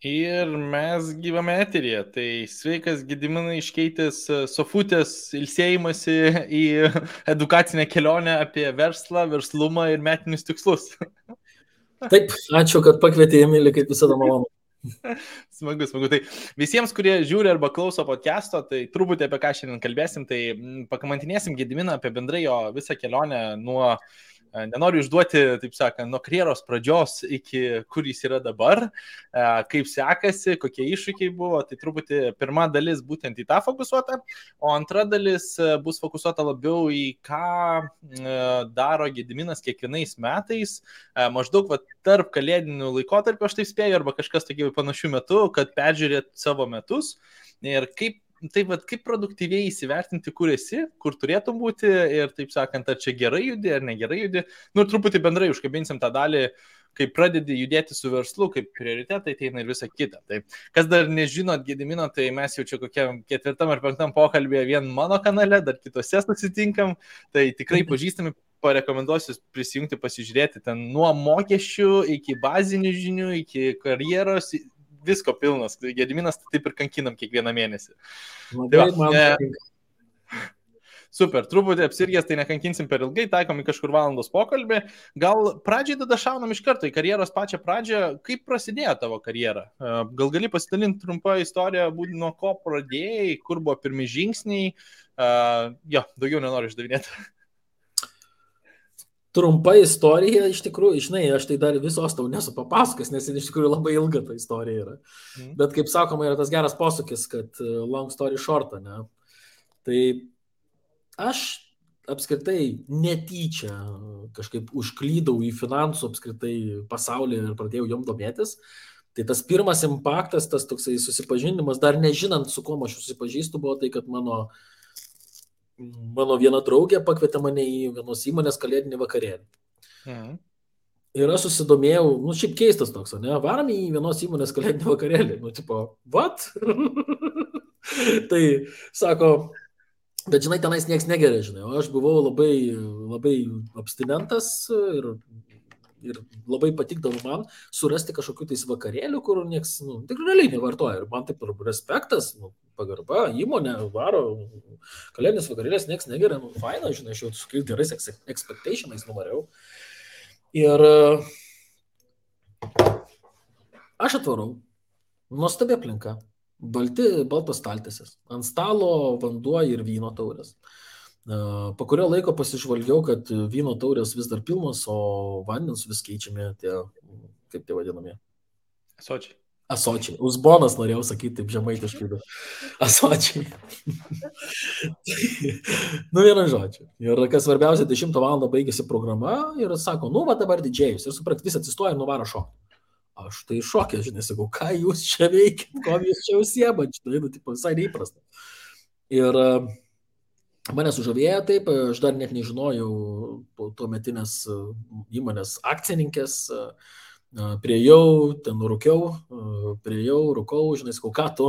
Ir mes gyvame eteryje. Tai sveikas Gediminai iškeitęs sofutės ilsėjimąsi į edukacinę kelionę apie verslą, verslumą ir metinius tikslus. Taip, ačiū, kad pakvietė, Emilį, kaip visada malonu. Smagu. Tai visiems, kurie žiūri arba klauso podcast'o, tai truputį apie ką šiandien kalbėsim, tai pakamantinėsim Gediminą apie bendrai jo visą kelionę nuo, nenoriu išduoti, taip sakant, nuo karjeros pradžios iki kur jis yra dabar, kaip sekasi, kokie iššūkiai buvo, tai truputį pirma dalis būtent į tą fokusuota, o antra dalis bus fokusuota labiau į ką daro Gediminas kiekvienais metais, maždaug tarp kalėdinių laikotarpių, aš taip spėju, arba kažkas tokių panašių metų, kad peržiūrėt savo metus ir kaip produktyviai įsivertinti, kur esi, kur turėtum būti ir, taip sakant, ar čia gerai judi, ar negerai judi. Nu, truputį bendrai užkabinsim tą dalį, kai pradedi judėti su verslu, kaip prioritetai ateina ir visa kita. Tai, kas dar nežinot Gedimino, tai mes jau čia kokiam 4. ar 5. pokalbėje vien mano kanale, dar kitose susitinkam, tai tikrai pažįstami, parekomenduosiu prisijungti, pasižiūrėti ten nuo mokesčių iki bazinių žinių, iki karjeros, visko pilnas. Gediminas taip ir kankinam kiekvieną mėnesį. Super, truputį apsirgęs, tai nekankinsim per ilgai, taikom į kažkur valandos pokalbį. Gal pradžiai tada šaunam iš karto į karjeros pačią pradžią. Kaip prasidėjo tavo karjera? Gal gali pasidalinti trumpą istoriją, nuo ko pradėjai, kur buvo pirmi žingsniai? Jo, daugiau nenoriu išdavinėti. Trumpa istorija, iš tikrųjų, žinai, aš tai dar visos tau nesu papasakęs, nes iš tikrųjų labai ilga ta istorija yra. Bet kaip sakoma, yra tas geras posūkis, kad long story short, ne? Tai aš apskritai netyčia kažkaip užklydau į finansų apskritai pasaulį ir pradėjau jom domėtis. Tai tas pirmas impaktas, tas toksai susipažinimas, dar nežinant, su kuo aš susipažįstu, buvo tai, kad mano viena draugė pakvietė mane į vienos įmonės kalėdinį vakarėlį. Ir aš susidomėjau, šiaip keistas toks, ne, varam į vienos įmonės kalėdinį vakarėlį. Tipo, what? Tai, sako, bet žinai, tenais nieks negeria, žinai, o aš buvau labai abstinentas ir labai patikdavo man surasti kažkokių tais vakarėlių, kur nieks, tikrai realiai nevartoja. Ir man taip ir respektas, pagarba, įmonė varo, kalėdinis vakarėlės nieks negeria, faina, žinai, aš jau su gerais expectationais numariau. Ir aš atvarau, nuostabi aplinka, baltos staltiesės, ant stalo vanduo ir vyno taurės. Po kurio laiko pasižvalgiau, kad vyno taurės vis dar pilnos, o vandens vis keičiami tie, kaip tai vadinami? Asočiai. Uzbonas norėjau sakyti taip žemaitiškai, bet asočiai. Vienu žodžiu. Ir kas svarbiausia, 10 valandą baigėsi programa ir sako, va dabar didžėjus. Ir suprat, vis atsistoja ir nuvaro šokti. Aš tai šokė, žinai, sakau, ką jūs čia veikit, ko jūs čia užsiemat, žinai, visai neįprasta. Ir mane sužavėjo taip, aš dar net nežinojau tuometinės įmonės akcininkės, priejau, ten rūkau, žinai, sakau, ką tu?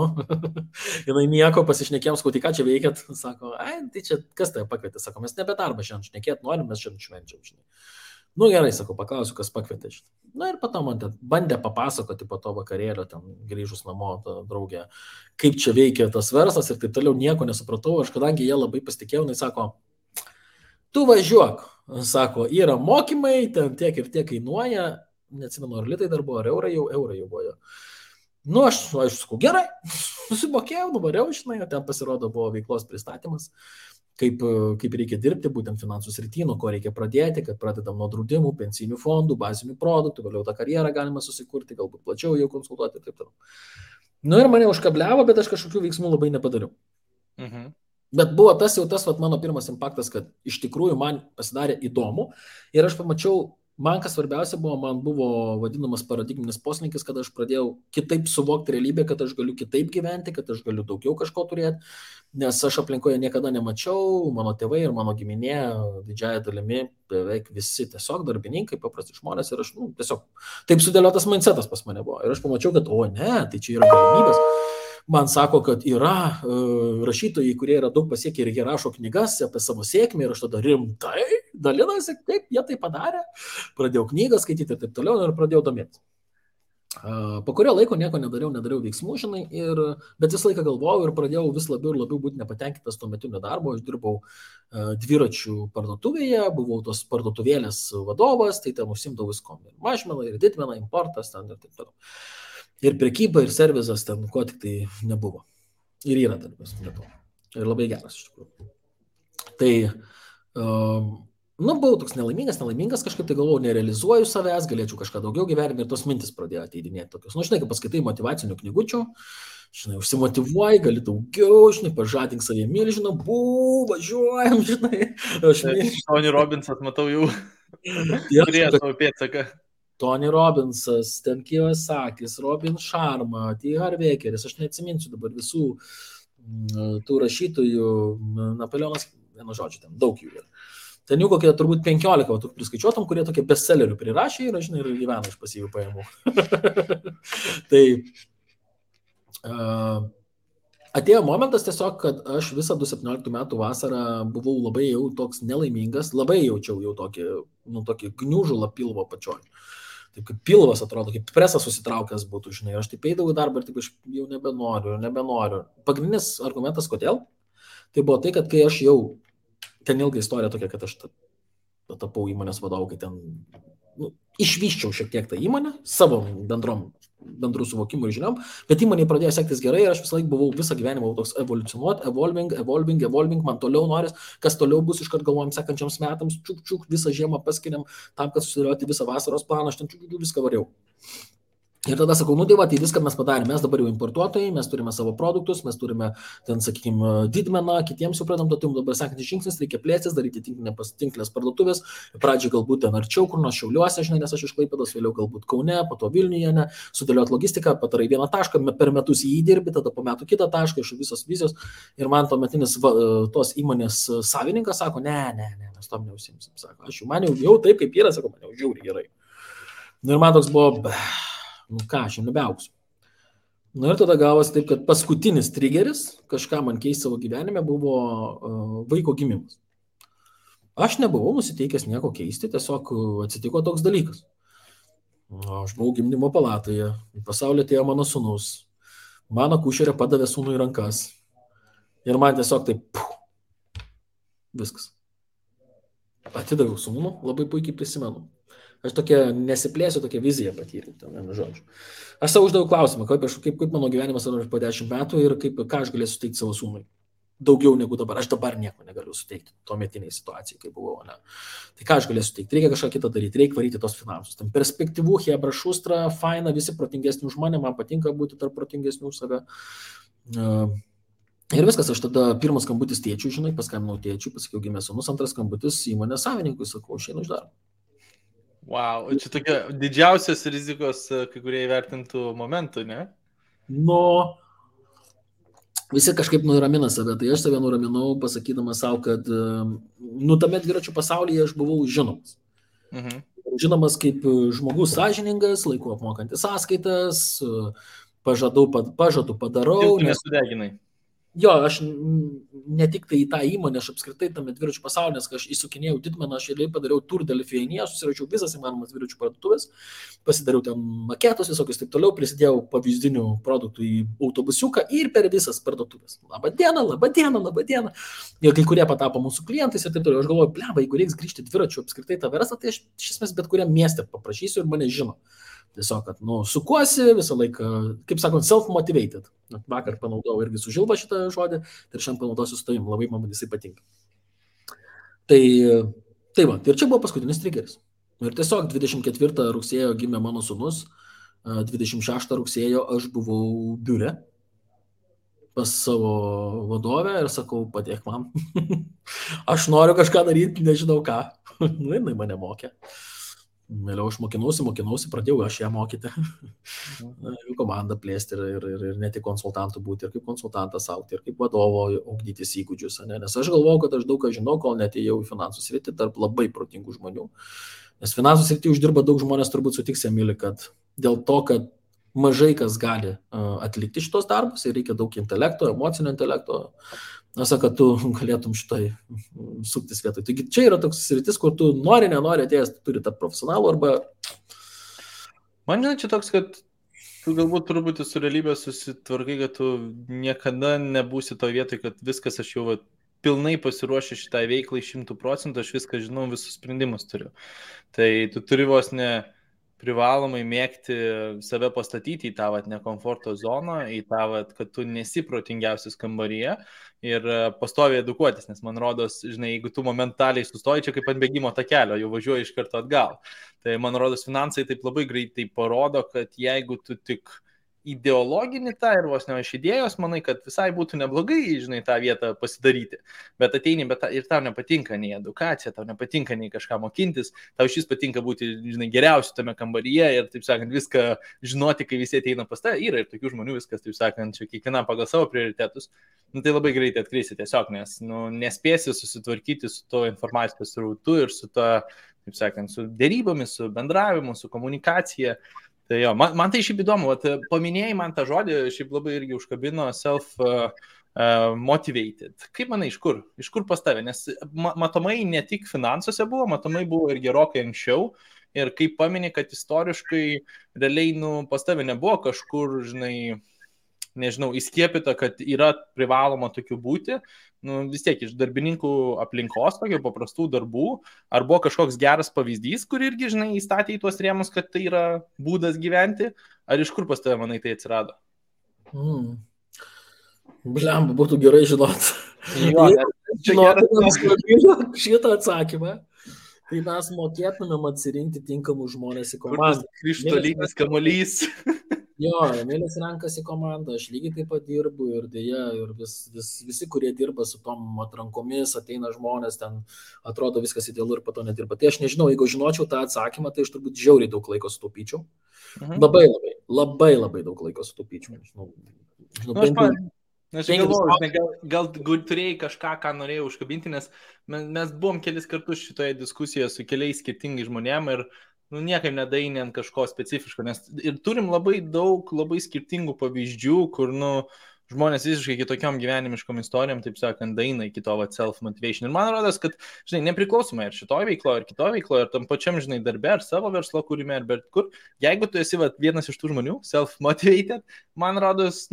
Jinai nieko, pasišnekėjom, sakau, tai ką čia veikiat? Sako, tai čia kas tai pakvietė? Sako, mes nebe darbą šiandien šnekėt norim, mes šiandien švenčiam, žinai. Gerai, sakau, paklausiu, kas pakvietė, žinai. Ir po to man bandė papasakoti po to vakarėlio, ten grįžus namo, ta draugė, kaip čia veikia tas verslas ir taip toliau, nieko nesupratau. Aš kadangi jie labai pasitikėjau, jinai sako, tu važiuok, sako, yra mokymai, ten tiek ir tiek kainuoja, neatsimenu, ar litai dar buvo, ar eurai jau buvo. Aš sakau, gerai, susimokėjau, nuvariau, žinai, ten pasirodo buvo veiklos pristatymas. Kaip reikia dirbti, būtent finansų srity, nuo ko reikia pradėti, kad pradedam nuo draudimų, pensinių fondų, bazinių produktų, vėliau tą karjerą galima susikurti, galbūt plačiau jau konsultuoti ir taip toliau. Ir mane užkabliavo, bet aš kažkokių veiksmų labai nepadariau. Bet buvo tas mano pirmas impaktas, kad iš tikrųjų man pasidarė įdomu ir aš pamačiau, man kas svarbiausia buvo, man buvo vadinamas paradigminis poslinkis, kad aš pradėjau kitaip suvokti realybę, kad aš galiu kitaip gyventi, kad aš galiu daugiau kažko turėti, nes aš aplinkoje niekada nemačiau, mano tėvai ir mano giminė didžiąją dalimi beveik visi tiesiog darbininkai, paprasti žmonės ir aš tiesiog taip sudėliotas mindsetas pas mane buvo. Ir aš pamačiau, kad tai čia yra galimybės. Man sako, kad yra rašytojai, kurie yra daug pasiekę ir jie rašo knygas apie savo sėkmę ir aš tada rimtai dalinasi, kaip jie tai padarė. Pradėjau knygą skaityti ir taip toliau ir pradėjau domėtis. Po kurio laiko nieko nedariau veiksmų, žinai, bet visą laiką galvojau ir pradėjau vis labiau ir labiau būti nepatenkintas tuo metu nedarbo. Aš dirbau dviračių parduotuvėje, buvau tos parduotuvėlės vadovas, tai ten užsimdavau viskom. Ir mažmena, ir didmena, importas ten ir taip toliau. Ir prekyba, ir servizas ten, ko tik tai nebuvo. Ir yra darbas, nebuvo. Ir labai geras iš tikrųjų. Tai buvau toks nelaimingas, kažkaip tai galvojau, nerealizuoju savęs, galėčiau kažką daugiau gyvenime ir tos mintis pradėjo ateidinėti tokios. Žinai, kai paskaitai motyvacinių knygučių, žinai, užsimotyvuoji, gali daugiau, žinai, pažadink savie milžiną, važiuojam, žinai. Tony Robbinsas, matau jau, turėjo savo pėdsaką. Tony Robbinsas, ten Kiyosakis, Robin Sharma, T. Harvekeris, aš neatsiminsiu dabar visų tų rašytojų, Napoleonas, vienu žodžiu, ten daug jų yra. Ten jų kokie turbūt 15, tu priskaičiuotum, kurie tokie bestsellerių prirašė ir, žinai, ir gyvena iš pasyvių pajamų. Tai atėjo momentas tiesiog, kad aš visą 2017 metų vasarą buvau labai jau toks nelaimingas, labai jaučiau jau tokį gniužulą pilvo pačioj. Taip kaip pilvas atrodo, kaip presas susitraukęs būtų, žinai, aš taip eidavau į darbą ir taip aš jau nebenoriu. Pagrindinis argumentas, kodėl? Tai buvo tai, kad kai aš jau ten ilga istorija tokia, kad aš tapau įmonės vadovu, kai ten išvyščiau šiek tiek tą įmonę, savo bendrų suvokimų ir žiniom, bet įmonė pradėjo sektis gerai ir aš visą laiką buvau visą gyvenimą toks evoliucionuoti, evolving, man toliau noris, kas toliau bus, iškart galvojam sekančiams metams, čiuk, visą žiemą paskiriam tam, kad susidėlioti visą vasaros planą, aš ten viską variau. Ir tada sakau, tai viską mes padarėme, mes dabar jau importuotojai, mes turime savo produktus, mes turime ten, sakykime, didmeną, kitiems suprantam, dabar sekantis žingsnis, reikia plėstis, daryti tinklės parduotuvės, pradžiai galbūt ten arčiau, kur nors Šiauliuose, žinai, nes aš iš Klaipėdos, vėliau galbūt Kaune, po to Vilniuje, sudėlioti logistiką, padarai vieną tašką, per metus jį įdirbi, tada po metų kitą tašką, iš visos vizijos. Ir man tuometinis tos įmonės savininkas sako, ne, mes tom neužsiimsim, sako, aš man jau taip, kaip yra, sako, man jau žiauriai gerai. Ir man toks buvo, aš jau nebeauksiu. Ir tada gavosi taip, kad paskutinis triggeris, kažką man keisti savo gyvenime, buvo vaiko gimimas. Aš nebuvau nusiteikęs nieko keisti, tiesiog atsitiko toks dalykas. Aš buvau gimdymo palatoje, į pasaulį atėjo mano sūnus, mano akušerė padavė sūnų į rankas ir man tiesiog taip, viskas. Atidaviau sūnų, labai puikiai prisimenu. Aš tokia nesiplėsiu, tokia viziją patyriau, vienu žodžiu. Aš savo uždaviau klausimą, kaip mano gyvenimas yra po 10 metų ir ką aš galėsiu suteikti savo sūnui. Daugiau negu dabar. Aš dabar nieko negaliu suteikti tuometiniai situacijai, kai buvau. Ne. Tai ką aš galėsiu suteikti? Reikia kažką kitą daryti, reikia varyti tos finansus. Tam perspektyvų, hebra, šustra, faina, visi protingesni už mane, man patinka būti tarp protingesnių už save. Ir viskas, aš tada pirmas skambutis tėčiui, žinai, paskambinau tėčiui, pasakiau, gimė sūnus, antras skambutis įmonės savininkui, sakau, išeinu iš darbo. Wow, čia tokia didžiausios rizikos, kai kurie įvertintų momentų, ne? Visi kažkaip nuramina save, tai aš save nuraminau, pasakydamas savo, kad tame dviračių pasaulyje aš buvau žinomas. Žinomas kaip žmogus sąžiningas, laiku apmokantis sąskaitas, pažadų padarau. Tu nesudeginai. Jo, aš ne tik tai į tą įmonę, aš apskritai tame dviračių pasaulyje, nes kai aš įsukinėjau didmeną, aš padariau Tour de Lithuania, susiračiau visas įmanomas dviračių parduotuvės, pasidariau ten maketus visokius, taip toliau, prisidėjau pavyzdinių produktų į autobusiuką ir per visas parduotuvės. Labadiena. Ir kai kurie patapo mūsų klientais ir taip toliau. Aš galvoju, bleba, jeigu reiks grįžti dviračių apskritai tą verslą, tai aš iš esmės bet kuriam mieste paprašysiu ir mane žino. Tiesiog, kad, sukuosi visą laiką, kaip sakant, self-motivated. Vakar panaudojau irgi su Žilba šitą žodį ir šiandien panaudosiu su tavim, labai man jisai patinka. Tai va, ir čia buvo paskutinis triggeris. Ir tiesiog 24 rugsėjo gimė mano sūnus, 26 rugsėjo aš buvau biure pas savo vadovę ir sakau, padėk man. Aš noriu kažką daryti, nežinau ką. Jinai mane mokė. Vėliau aš mokinausi, pradėjau aš ją mokyti, komandą plėsti ir ne tik konsultantų būti, ir kaip konsultantas augti, ir kaip vadovo ugdytis įgūdžius. Nes aš galvojau, kad aš daug ką žinau, kol netėjau į finansų sritį tarp labai protingų žmonių. Nes finansų sritį uždirba daug žmonės, turbūt sutiks, Emili, kad dėl to, kad mažai kas gali atlikti šitos darbus ir reikia daug intelekto, emocinio intelekto. Aš sakau, kad tu galėtum šitai suktis vietoj. Taigi čia yra toks sritis, kur tu nenori atėjęs, tu turi tapti profesionalu arba... Man žinai, čia toks, kad Tu galbūt truputį su realybė susitvarkai, kad tu niekada nebūsi to vietoj, kad viskas aš jau pilnai pasiruošę šitai veiklai 100%, aš viską žinau, visus sprendimus turiu. Tai tu turi vos ne privalomai mėgti save pastatyti į tą nekomforto zoną, į tą, kad tu nesi protingiausias kambaryje ir pastoviai edukuotis, nes man rodos, žinai, jeigu tu momentaliai sustoji čia kaip ant bėgimo takelio, jau važiuoji iš karto atgal. Tai man rodos, finansai taip labai greitai parodo, kad jeigu tu tik ideologinį tą ir vos ne iš idėjos, manai, kad visai būtų neblogai, žinai, tą vietą pasidaryti, bet ateini, ir tau nepatinka nei edukacija, tau nepatinka nei kažką mokintis, tau šis patinka būti, žinai, geriausiu tame kambaryje ir, taip sakant, viską žinoti, kai visi ateina pas tave, yra ir tokių žmonių viskas, taip sakant, čia kiekviena pagal savo prioritetus, tai labai greitai atkreisi tiesiog, nes nespėsi susitvarkyti su to informacijos srautu ir su to, taip sakant, su dėrybomis, su bendravimu, su komunikacija. Tai jo, man tai šiaip įdomu, paminėjai man tą žodį, šiaip labai irgi užkabino self-motivated. Kaip manai, iš kur pas tave? Nes matomai ne tik finansuose buvo, matomai buvo ir gerokai anksčiau. Ir kaip paminė, kad istoriškai realiai pas tave nebuvo kažkur, žinai, nežinau, įskiepita, kad yra privaloma tokių būti, vis tiek iš darbininkų aplinkos, tokių paprastų darbų, ar buvo kažkoks geras pavyzdys, kur irgi, žinai, įstatė į tuos rėmus, kad tai yra būdas gyventi, ar iš kur pas tave, manai, tai atsirado? Blemba, būtų gerai žinot. Šitą atsakymą, tai mes mokėtumėm atsirinkti tinkamus žmonės į komandą. Krištolinis kamuolys. Jo, Emilis renkasi komandą, aš lygiai taip pat dirbu ir dėja, ir visi, kurie dirba su tom atrankomis, ateina žmonės, ten atrodo viskas idealu ir po to nedirba. Tai aš nežinau, jeigu žinočiau tą atsakymą, tai aš turbūt žiauriai daug laiko sutaupyčiau. Labai daug laiko sutaupyčiau. Aš galvoju, gal turėjai kažką, ką norėjau užkabinti, nes mes buvom kelis kartus šitoje diskusijoje su keliais skirtingais žmonėm ir niekaip nedainė ant kažko specifiško, nes ir turim labai daug, labai skirtingų pavyzdžių, kur, žmonės visiškai kitokiom gyvenimiškom istorijom, taip sakant, daina iki to self-motivation. Ir man rodos, kad, žinai, nepriklausomai ir šitoje veikloje, ir kitoje veikloje, ir tam pačiam, žinai, darbe, ar savo verslo kūrime, ar bet kur, jeigu tu esi vienas iš tų žmonių, self-motivated, man rodos,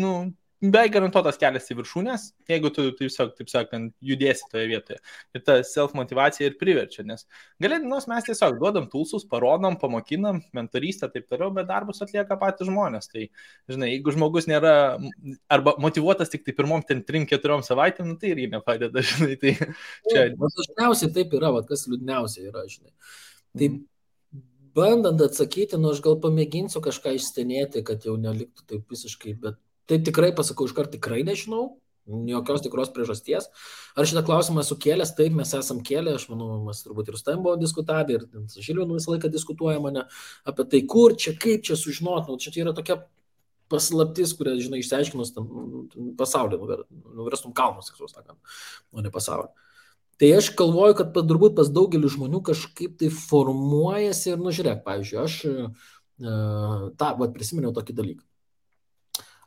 beveik garantuotas kelias į viršūnės, jeigu tu, taip sakant, judėsi toje vietoje. Ir ta self-motivacija ir priverčia, nes galėdinos mes tiesiog duodam tulsus, parodom, pamokinam, mentorystę, taip toliau, bet darbus atlieka patys žmonės. Tai, žinai, jeigu žmogus nėra arba motivuotas tik tai pirmom 3-4 savaitėm, tai irgi nepadeda, žinai. Tai čia... Dažniausiai taip yra, kas liūdniausia yra, žinai. Taip, bandant atsakyti, aš gal pamėginsiu kažką išstenėti, kad jau neliktų taip visiškai, bet tai tikrai pasakau, iškart tikrai nežinau, jokios tikros priežasties. Ar šitą klausimą esu kėlęs? Taip, mes esam kėlę, aš manau, mes turbūt ir su tavim buvo diskutavę, ir su Žilvinu visą laiką diskutuoja mane apie tai, kur čia, kaip čia sužinot, čia yra tokia paslaptis, kurią, žinai, išsiaiškinus pasaulį, nuverstum kalnus, o ne pasaulį. Tai aš galvoju, kad turbūt pas daugelį žmonių kažkaip tai formuojasi ir, žiūrėk, pavyzdžiui, aš prisiminiau tokį dalyką.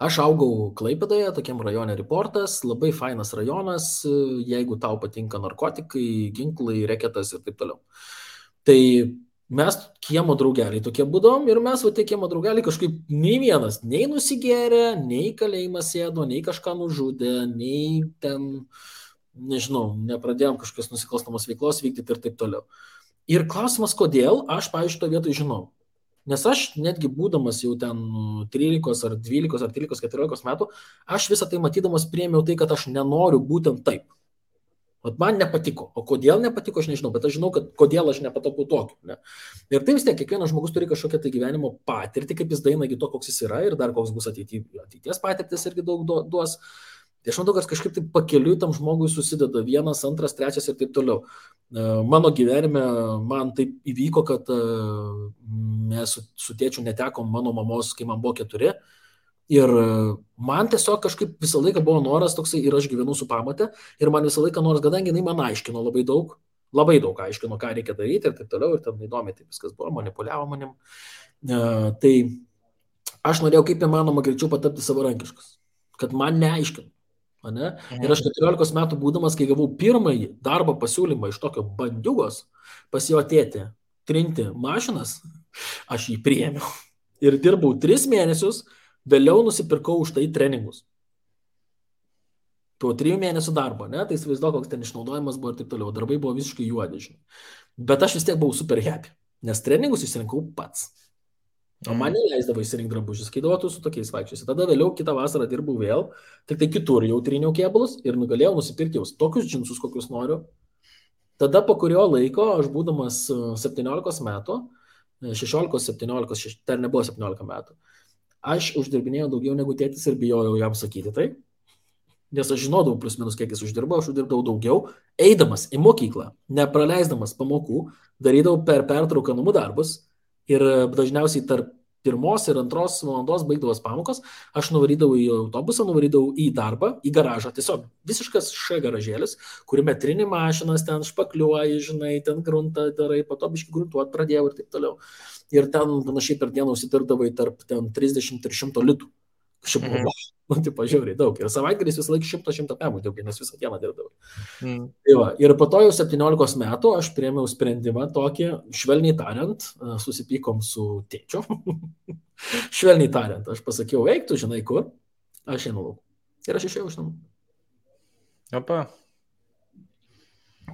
Aš augau Klaipėdoje, tokiam rajone Reportas, labai fainas rajonas, jeigu tau patinka narkotikai, ginklai, reketas ir taip toliau. Tai mes kiemo draugeliai tokie būdom ir mes tie kiemo draugeliai kažkaip nei vienas, nei nusigėrė, nei kalėjimą sėdo, nei kažką nužudė, nei ten, nežinau, nepradėjom kažkokios nusikalstamos veiklos vykdyti ir taip toliau. Ir klausimas, kodėl, aš, pavyzdžiui, to vietoj žinau. Nes aš netgi būdamas jau ten 13 ar 12 ar 13-14 metų, aš visą tai matydamas priėmiau tai, kad aš nenoriu būtent taip. Vat man nepatiko. O kodėl nepatiko, aš nežinau, bet aš žinau, kad kodėl aš nepatapau tokiu. Ne? Ir tai vis tiek, kiekvienas žmogus turi kažkokią tai gyvenimo patirtį, kaip jis daina iki to, koks jis yra ir dar koks bus ateities patirtis irgi daug duos. Tai aš matau, kad kažkaip taip pakeliui tam žmogui susideda 1, 2, 3 ir taip toliau. Mano gyvenime man taip įvyko, kad mes su tėčiu netekom mano mamos, kai man buvo 4. Ir man tiesiog kažkaip visą laiką buvo noras toksai ir aš gyvenu su pamate. Ir man visą laiką noras, kadangi jinai man aiškino labai daug aiškino, ką reikia daryti ir taip toliau. Ir ten įdomiai taip viskas buvo, manipuliavo manim. Tai aš norėjau kaip įmanoma greičiau patapti savarankiškas. Kad man neaiškino. Ne? Ir aš 14 metų būdamas, kai gavau pirmąjį darbo pasiūlymą iš tokio bandiugos pas jo tėtį trinti mašinas, aš jį priėmiau. ir dirbau 3 mėnesius, vėliau nusipirkau už tai treningus. Po 3 mėnesių darbo, ne? Tai įsivaizduoju, koks ten išnaudojimas buvo ir taip toliau. Darbai buvo visiškai juodi, žinai. Bet aš vis tiek buvau super happy, nes treningus išsirinkau pats. O man neleisdavo įsirinkti drabužius, kai duotų su tokiais vaikščiais. Tada vėliau kitą vasarą dirbau vėl, tik tai kitur jau tryniau kėbulus ir nugalėjau nusipirkti jau tokius džinsus, kokius noriu. Tada po kurio laiko, aš būdamas 17 metų, 16-17, dar nebuvo 17 metų, aš uždirbinėjau daugiau negu tėtis ir bijojau jam sakyti tai. Nes aš žinodavau plus minus, kiek jis uždirbau, aš uždirbdavau daugiau, eidamas į mokyklą, nepraleisdamas pamokų, darydavau per pertrauką namų darbus ir dažniausiai tarp 1 ir 2 valandos baigdavos pamokos, aš nuvarydavau į autobusą, nuvarydavau į darbą, į garažą, tiesiog visiškas garažėlis, kuriame trini mašinas, ten špakliuoji, žinai, ten gruntą darai, po to biškai gruntuot pradėjau ir taip toliau. Ir ten panašiai per dieną užsitirdavai tarp 30 ir 100 litų. Šiaip buvo, tipo, žiauriai daug. Ir savaitgalis visą laiką 100 pemų dirbau, nes visą dieną dirbdavau. Tai va, ir po to jau 17 metų aš priėmiau sprendimą tokį, švelniai tariant, susipykom su tėčiu. Švelniai tariant, aš pasakiau, eik, tu žinai kur, aš einu lauk. Ir aš išėjau iš namų. Opa.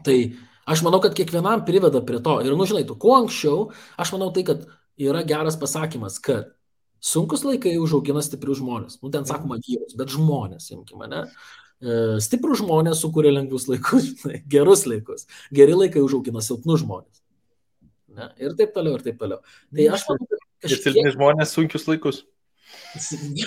Tai aš manau, kad kiekvienam priveda prie to. Ir, žinai, tu kuo anksčiau, aš manau tai, kad yra geras pasakymas, kad sunkus laikai užaugina stiprius žmonės. Ten sakoma vyrus, bet žmonės, imkime, ne? Stiprus žmonės sukuria lengvus laikus, žinai, gerus laikus. Geri laikai užaugina silpnus žmonės. Ne? Ir taip toliau, ir taip toliau. Tai aš manau, kad kažkiek... Ir silpni žmonės sunkius laikus.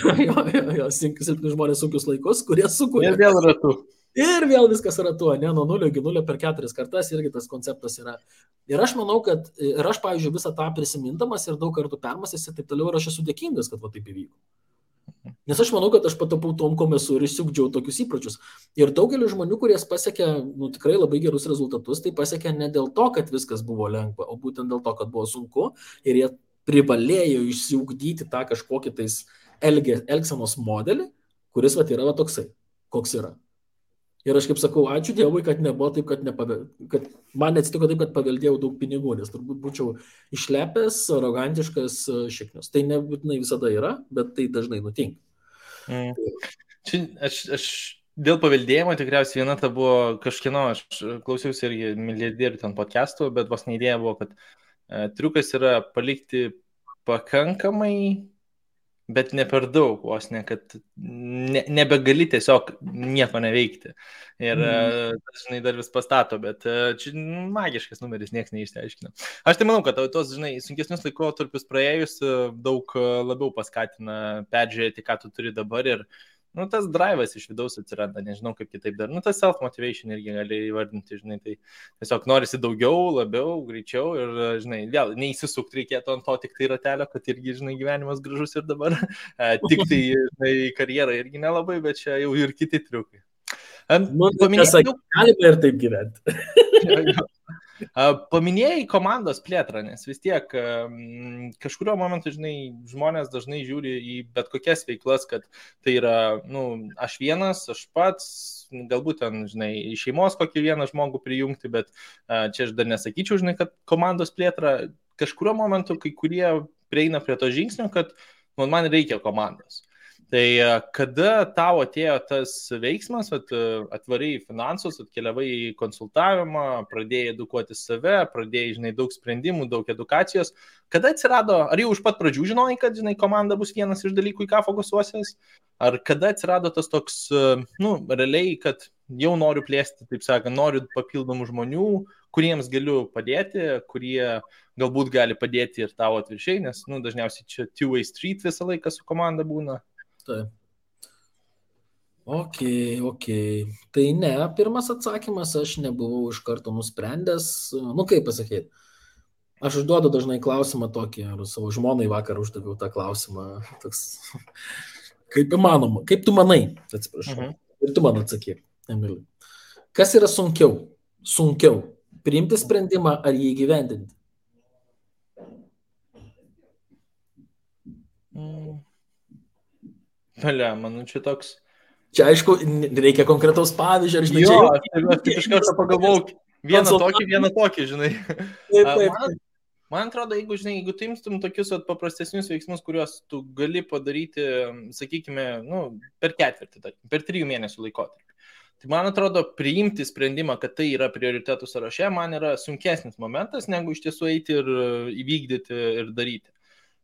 Jo, silpni žmonės sunkius laikus, kurie sukuria. Ir vėl ratu. Ir vėl viskas yra tuo, ne, nuo 0 iki 0 per 4 kartas irgi tas konceptas yra. Ir aš manau, kad, ir aš, pavyzdžiui, visą tą prisimindamas ir daug kartų permąstęs ir taip toliau, ir aš esu dėkingas, kad va taip įvyko. Nes aš manau, kad aš patapau tom, kom esu ir išsiugdžiau tokius įpročius. Ir daugelis žmonių, kurie pasiekė tikrai labai gerus rezultatus, tai pasiekė ne dėl to, kad viskas buvo lengva, o būtent dėl to, kad buvo sunku ir jie privalėjo išsiugdyti tą kažkokį tais elgsenos modelį, kuris va yra va toksai, koks yra. Ir aš kaip sakau, ačiū Dievui, kad nebuvo taip, kad man neatsitiko taip, kad paveldėjau daug pinigų, nes turbūt būčiau išlepęs, arogantiškas šiknius. Tai nebūtinai visada yra, bet tai dažnai nutinka. Čia aš dėl paveldėjimo tikriausiai viena ta buvo kažkieno, aš klausiausi irgi milijardierių ten podcastų, bet vos neidėja buvo, kad triukas yra palikti pakankamai, bet ne per daug, vos ne, kad nebegali tiesiog nieko neveikti. Ir žinai, dar vis pastato, bet čia magiškas numeris, niekas neišsiaiškina. Aš tai manau, kad tos, žinai, sunkesnius laikotarpius praėjus daug labiau paskatina peržiūrėti, ką tu turi dabar ir tas drive'as iš vidaus atsiranda, nežinau kaip kitaip dar. Tas self-motivation irgi gali įvardinti, žinai, tai tiesiog norisi daugiau, labiau, greičiau ir, žinai, vėl neįsisukti reikėtų ant to tik tai ratelio, kad irgi, žinai, gyvenimas gražus ir dabar. Tik tai, žinai, karjera irgi nelabai, bet čia jau ir kiti triukai. Galime ir taip gyventi. Paminėjai komandos plėtrą, nes vis tiek kažkurio momentu, žinai, žmonės dažnai žiūri į bet kokias veiklas, kad tai yra, aš vienas, aš pats, galbūt ten, žinai, iš šeimos kokį vieną žmogų prijungti, bet čia aš dar nesakyčiau, žinai, kad komandos plėtra kažkurio momentu, kai kurie prieina prie to žingsnio, kad man reikia komandos. Tai kada tau atėjo tas veiksmas, atvarai į finansus, atkeliavai į konsultavimą, pradėjai edukuoti save, pradėjai, žinai, daug sprendimų, daug edukacijos, kada atsirado, ar jau iš pat pradžių žinojai, kad, žinai, komanda bus vienas iš dalykų, į ką fokusuosies, ar kada atsirado tas toks, realiai, kad jau noriu plėsti, taip sakant, noriu papildomų žmonių, kuriems galiu padėti, kurie galbūt gali padėti ir tavo atviršiai, nes, dažniausiai čia two-way street visą laiką su komanda būna. Taip. Ok. Tai ne, pirmas atsakymas, aš nebuvau iš karto nusprendęs, kaip pasakyti, aš užduodu dažnai klausimą tokį, ar savo žmonai vakar uždaviau tą klausimą, toks, kaip įmanoma, kaip tu manai, atsiprašau, ir tu man atsakyk, Emili. Kas yra sunkiau, priimti sprendimą ar jį įgyvendinti? Čia toks. Čia aišku, reikia konkretaus pavyzdžio, ar žinai, aš iš karto pagalvojau, vieną tokį, žinai. Taip. Man atrodo, jeigu tu imtum tokius paprastesnius veiksmus, kuriuos tu gali padaryti, sakykime, per ketvirtį, per 3 mėnesių laikotarpį. Tai man atrodo, priimti sprendimą, kad tai yra prioritetų sąraše, man yra sunkesnis momentas, negu iš tiesų eiti ir įvykdyti ir daryti.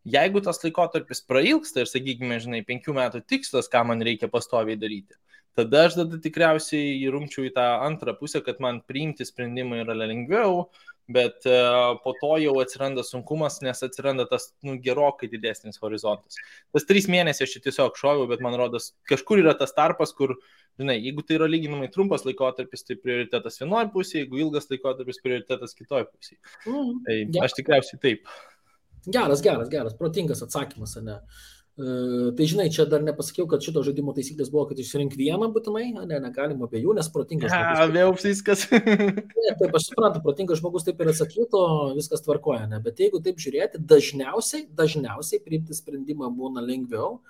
Jeigu tas laikotarpis prailgsta ir, sakykime, 5 metų tikslas, ką man reikia pastoviai daryti, tada aš tikriausiai įrumčiau į tą antrą pusę, kad man priimti sprendimą yra lengviau, bet po to jau atsiranda sunkumas, nes atsiranda tas gerokai didesnis horizontas. Tas 3 mėnesiai aš čia tiesiog šoviau, bet man rodos, kažkur yra tas tarpas, kur, jeigu tai yra lyginamai trumpas laikotarpis, tai prioritetas vienoje pusėje, jeigu ilgas laikotarpis, prioritetas kitoje pusėje. Tai aš tikriausiai taip. Geras, protingas atsakymas, ne? Tai žinai, čia dar nepasakiau, kad šito žaidimo taisyklės buvo, kad išsirink vieną būtinai, negalima abiejų, nes protingas žmogus. Vėl viskas. Taip, aš suprantu, protingas žmogus taip ir atsakyto, viskas tvarkoja, ne? Bet jeigu taip žiūrėti, dažniausiai priimti sprendimą būna lengviau,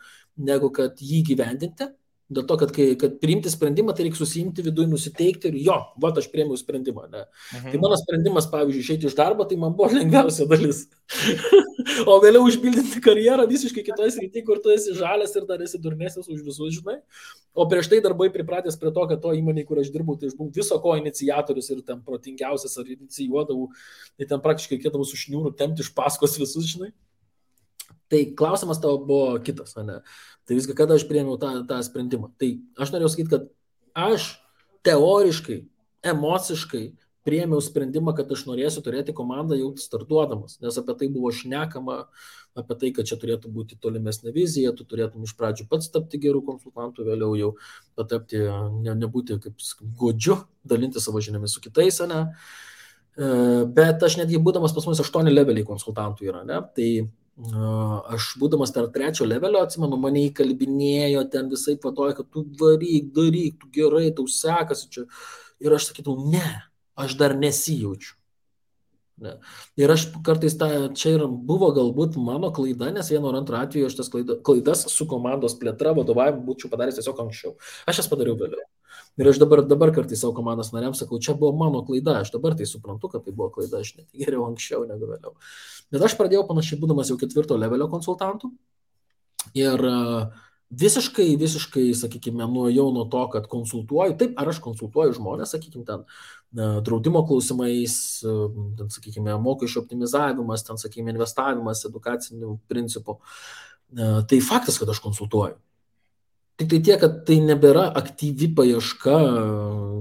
negu kad jį gyvendinti. Dėl to, kad priimti sprendimą, tai reikia susiimti viduje, nusiteikti ir aš priėmiau sprendimą. Ne? Tai mano sprendimas, pavyzdžiui, išeiti iš darbo, tai man buvo lengviausia dalis. O vėliau užpildyti karjerą visiškai kitoje srityje, kur tu esi žalias ir dar esi durnesnis už visus, žinai. O prieš tai darbai pripratęs prie to, kad to įmonėje, kur aš dirbau, tai aš buvau viso ko iniciatorius ir ten protingiausias ar inicijuodavau, tai ten praktiškai reikėdavo su šniūru tempti iš paskos visus, žinai. Tai klausimas tavo buvo kitas, ne? Tai viską, kada aš priėmiau tą sprendimą. Tai aš norėjau sakyti, kad aš teoriškai, emociškai priėmiau sprendimą, kad aš norėsiu turėti komandą jau startuodamas, nes apie tai buvo šnekama, apie tai, kad čia turėtų būti tolimesnė vizija, tu turėtum iš pradžių pats tapti gerų konsultantų, vėliau jau patapti, nebūti kaip godžiu, dalinti savo žiniomis su kitais, ne? Bet aš netgi būdamas pas mus 8 leveliai konsultantų yra, ne? Tai aš būdamas tarp 3 levelio, atsimenu, mane įkalbinėjo ten visai patoja, kad tu varyk, daryk, tu gerai, tau sekasi čia. Ir aš sakytų, ne, aš dar nesijaučiu. Ne. Ir aš kartais čia ir buvo galbūt mano klaida, nes vieno ar antro atveju aš tas klaidas su komandos plėtra, vadovavimu būčiau padaręs tiesiog anksčiau. Aš jas padariau vėliau. Ir aš dabar kartais savo komandos nariams sakau, čia buvo mano klaida, aš dabar tai suprantu, kad tai buvo klaida, aš net geriau anksčiau negu vėliau. Bet aš pradėjau panašiai būdamas jau 4 levelio konsultantų ir visiškai, sakykime, nuėjau nuo to, kad konsultuoju, taip, ar aš konsultuoju žmonės, sakykime, ten draudimo klausimais, ten, sakykime, mokesčių optimizavimas, ten, sakykime, investavimas, edukacinių principų. Tai faktas, kad aš konsultuoju. Tik tai tiek, kad tai nebėra aktyvi paieška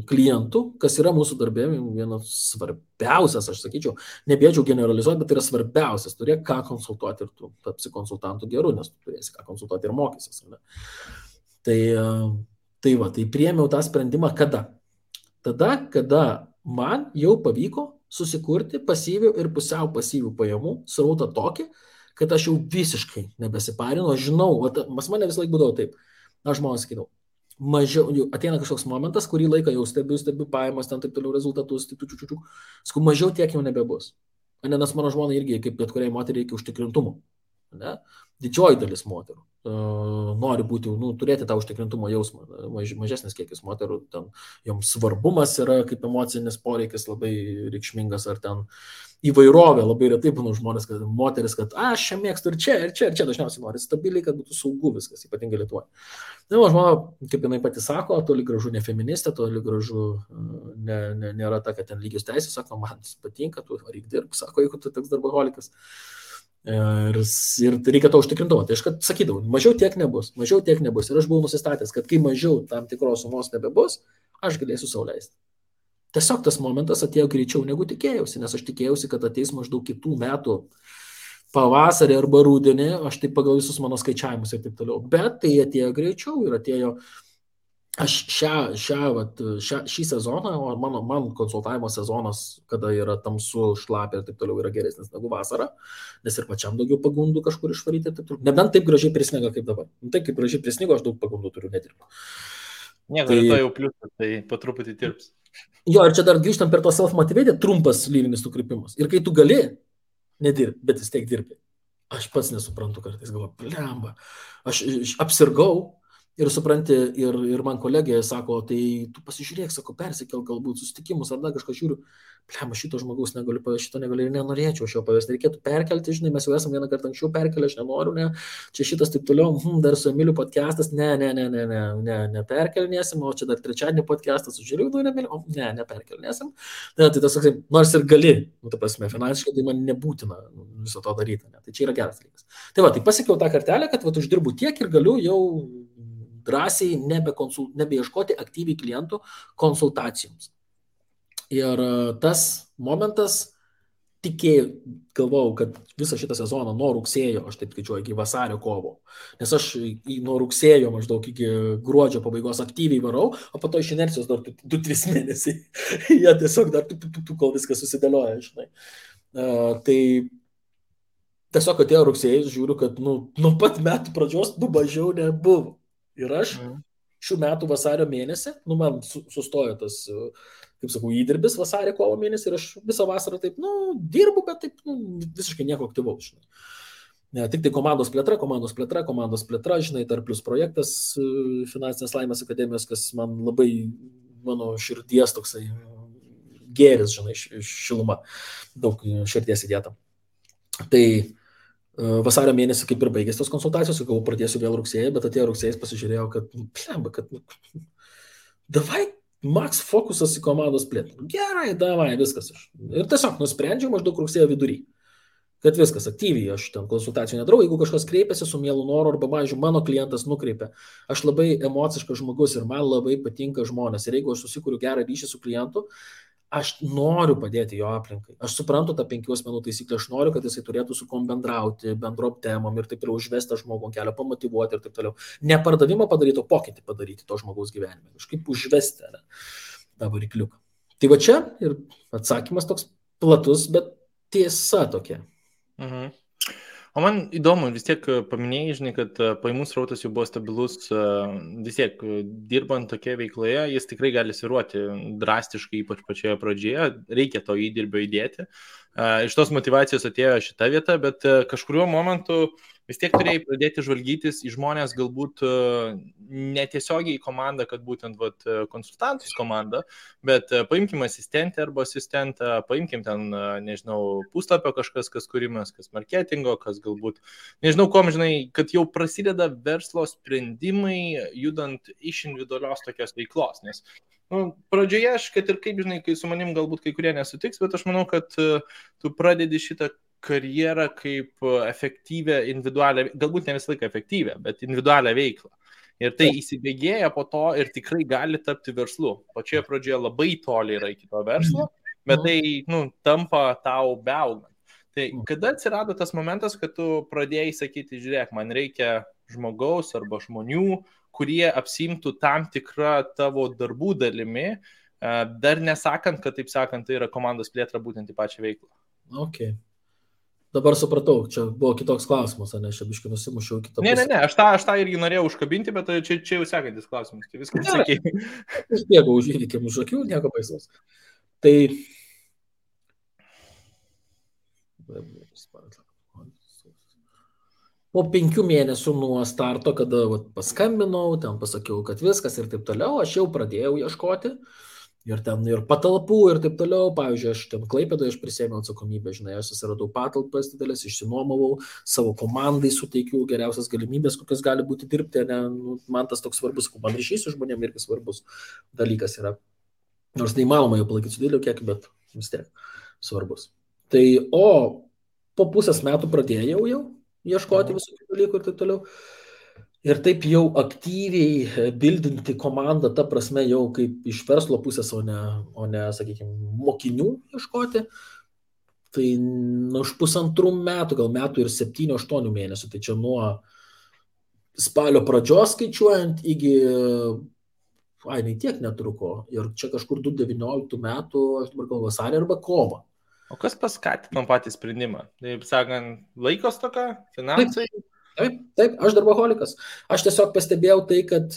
klientų, kas yra mūsų darbė vienas svarbiausias, aš sakyčiau, nebėčiau generalizuoti, bet tai yra svarbiausias, turėk ką konsultuoti ir tu tapsi konsultantų geru, nes tu turėsi ką konsultuoti ir mokysis. Ne? Tai priėmiau tą sprendimą kada? Tada, kada man jau pavyko susikurti pasyvių ir pusiau pasyvių pajamų srautą tokį, kad aš jau visiškai nebesiparinu, aš žinau, pas mane vis laik būdavo taip. Aš žmonės sakydavau, mažiau, ateina kažkoks momentas, kurį laiką jau stebiu pajamas, ten taip toliau rezultatus, sakau, mažiau tiek jau nebebus. Nes mano žmona irgi, kaip bet kuriai moteriai, reikia užtikrintumo. Ne? Didžioji dalis moterų nori būti, turėti tą užtikrintumo jausmą. Mažesnis kiekis moterų, ten joms svarbumas yra kaip emocinis poreikis labai reikšmingas, ar ten įvairovė, labai retai būna žmonės, kad moteris, kad aš čia mėgstu ir čia dažniausiai nori stabiliai, kad būtų saugu viskas, ypatingai Lietuvoje. Na, žmona, kaip jinai pati sako, toli gražu ne feministė, toli gražu nėra ta, kad ten lygios teisės, sako, man patinka, tu varyk dirb, sako, jeigu tu toks darbaholikas. Ir reikia to užtikrintumo. Tai aš sakydavau, mažiau tiek nebus. Ir aš buvau nusistatęs, kad kai mažiau tam tikros sumos nebebus, aš galėsiu sau leisti. Tiesiog tas momentas atėjo greičiau negu tikėjausi, nes aš tikėjausi, kad ateis maždaug kitų metų pavasarį arba rudenį, aš taip pagal visus mano skaičiavimus ir taip toliau. Bet tai atėjo greičiau ir atėjo. Aš šį sezoną, o man konsultavimo sezonas, kada yra tamsu, šlapia ir taip toliau, yra geresnis negu vasara, nes ir pačiam daugiau pagundų kažkur išvaryti ir taip toliau. Nebent taip gražiai prisniga kaip dabar. Taip kaip gražiai prisnigo, aš daug pagundų turiu nedirbti. Nieko, tai jau pliusas, tai po truputį tirps. Jo, ir čia dar grįžtam per to self-motivated, trumpas lyrinis nukrypimas. Ir kai tu gali nedirbti, bet vis tiek dirbi. Aš pats nesuprantu kartais, galvoju, blemba, aš apsirgau. Ir supranti, ir man kolegė sako, tai tu pasižiūrėk, sako, persikel galbūt susitikimus ar dar kažką žiūriu. Pliam, šito žmogaus negaliu pavesti, šito negaliu ir nenorėčiau aš jo pavesti. Reikėtų perkelti, žinai, mes jau esame vieną kartą anksčiau perkelę, aš nenoriu, ne. Čia šitas taip toliau, dar su Emiliu podcastas, neperkelnėsim, o čia dar trečiadienį podcastas su Žiliu, neperkelnėsim. Ne, tai tas, nors ir gali, ta prasme, finansiškai tai man nebūtina viso to daryti. Ne. Tai čia yra geras dalykas. Tai va, tai pasiekiau tą kartelę, kad uždirbu tiek ir galiu jau drąsiai nebeieškoti aktyviai klientų konsultacijoms. Ir tas momentas galvojau, kad visą šitą sezoną nuo rugsėjo, aš taip skaičiuoju, iki vasario kovo, nes aš nuo rugsėjo maždaug iki gruodžio pabaigos aktyviai varau, o po to iš inercijos dar 2-3 mėnesiai. Jie tiesiog dar kol viskas susidėlioja, žinai. Tai tiesiog atėjo rugsėjais, žiūriu, kad nuo pat metų pradžios mažiau nebuvo. Ir aš šių metų vasario mėnesį, man sustojo tas, kaip sakau, įdirbis vasario kovo mėnesį ir aš visą vasarą taip, dirbu, bet taip, visiškai nieko aktyvaus, žinai. Tik tai komandos plėtra, žinai, dar plus projektas Finansinės laimės akademijos, kas man labai, mano širdies toksai gėris, žinai, šiluma, daug širdies įdėta. Tai vasario mėnesį kaip ir baigėsi tos konsultacijos, sakau, pradėsiu vėl rugsėjai, bet atėjo rugsėjais, pasižiūrėjau, kad davai max fokusas į komandos plėtrą. Gerai, davai, viskas. Ir tiesiog nusprendžiau maždaug rugsėjo vidury, kad viskas aktyviai, aš ten konsultacijų nedarau, jeigu kažkas kreipiasi su mielu noru arba, pavyzdžiui, mano klientas nukreipia, aš labai emociškas žmogus ir man labai patinka žmonės. Ir jeigu aš susikuriu gerą ryšį su klientu, aš noriu padėti jo aplinkai. Aš suprantu tą 5 asmenų taisyklę, aš noriu, kad jisai turėtų su kom bendrauti, bendrom temom ir taip toliau užvesti žmogų kelio, pamotyvuoti ir taip toliau. Ne pardavimą padaryti, o pokytį padaryti to žmogaus gyvenime. Kažkaip užvesti tą varikliuką. Tai va čia ir atsakymas toks platus, bet tiesa tokia. Mhm. O man įdomu, vis tiek paminėjai, žinai, kad pajamų srautas jau buvo stabilus, vis tiek dirbant tokioje veikloje, jis tikrai gali svyruoti drastiškai, ypač pačioje pradžioje, reikia to įdirbio įdėti. Iš tos motivacijos atėjo šita vieta, bet kažkuriuo momentu vis tiek turėjai pradėti žvalgytis į žmonės, galbūt netiesiogiai į komandą, kad būtent konsultantus komandą, bet paimkim asistentę arba asistentą, paimkim ten, nežinau, puslapio kažkas, kas kūrimas, kas marketingo, kas galbūt, nežinau, kom, žinai, kad jau prasideda verslo sprendimai, judant iš individualios tokios veiklos, nes pradžioje aš, kad ir kaip, žinai, kai su manim galbūt kai kurie nesutiks, bet aš manau, kad tu pradedi šitą karjerą kaip efektyvę, individualią, galbūt ne visą laiką efektyvę, bet individualią veiklą. Ir tai įsibėgėja po to ir tikrai gali tapti verslu. Pačioje pradžioje labai toli yra iki to verslo, bet tai tampa tau beaugant. Tai kada atsirado tas momentas, kad tu pradėjai sakyti, žiūrėk, man reikia žmogaus arba žmonių, kurie apsimtų tam tikrą tavo darbų dalimi, dar nesakant, kad taip sakant, tai yra komandos plėtra būtent į pačią veiklą. Okay. Dabar supratau, čia buvo kitoks klausimas, ne, aš biškai nusimušiau kitą pusę. Ne, aš tą irgi norėjau užkabinti, bet čia jau sekantis klausimas, tai viskas sakė. Aš bėgau už įvykėm už akių, nieko baisaus. Tai po 5 mėnesių nuo starto, kada paskambinau, ten pasakiau, kad viskas ir taip toliau, aš jau pradėjau ieškoti. Ir ten ir patalpų ir taip toliau, pavyzdžiui, aš ten Klaipėdoje aš prisėmiau atsakomybę, žinai, aš susiradau patalpas didelės, išsinuomavau, savo komandai suteikiau geriausias galimybės, kokios gali būti dirbti, ne, man tas toks svarbus, man ryšys su žmonėm irgi svarbus dalykas yra. Nors neįmanoma jau palaikyti su dideliu kiekiu, bet vis tiek svarbus. Tai, o po pusės metų pradėjau jau ieškoti visų dalykų ir taip toliau. Ir taip jau aktyviai bildinti komandą, ta prasme jau kaip iš verslo pusės, o ne, sakykime, mokinių ieškoti, tai už 1,5 metų, gal metų ir 7-8 mėnesių, tai čia nuo spalio pradžios skaičiuojant iki, tiek netruko, ir čia kažkur 2019 metų, aš dabar gal vasarį arba kovą. O kas paskatino patį sprendimą? Taip sakant, laikos toka, finansai? Taip, aš darboholikas. Aš tiesiog pastebėjau tai, kad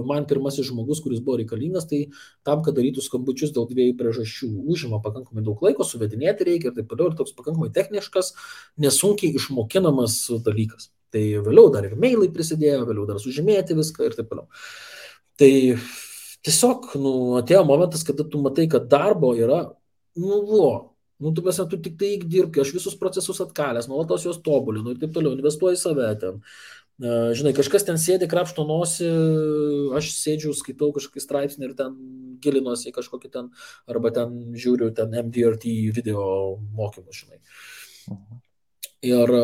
man pirmasis žmogus, kuris buvo reikalingas, tai tam, kad darytų skambučius dėl 2 priežasčių, užima pakankamai daug laiko, suvedinėti reikia ir taip toliau, ir toks pakankamai techniškas, nesunkiai išmokinamas dalykas. Tai vėliau dar ir mailai prisidėjo, vėliau dar sužymėti viską ir taip toliau. Tai tiesiog, atėjo momentas, kada tu matai, kad darbo yra, tu mes, tu tik tai dirbki, aš visus procesus atkalęs, nuolatos juos tobulinu ir taip toliau, investuoju į save ten. Žinai, kažkas ten sėdi, krapšto nosį, aš sėdžiu, skaitau kažkokį straipsnį ir ten gilinuosi į kažkokį ten, arba ten žiūriu ten MDRT video mokymus, žinai. Ir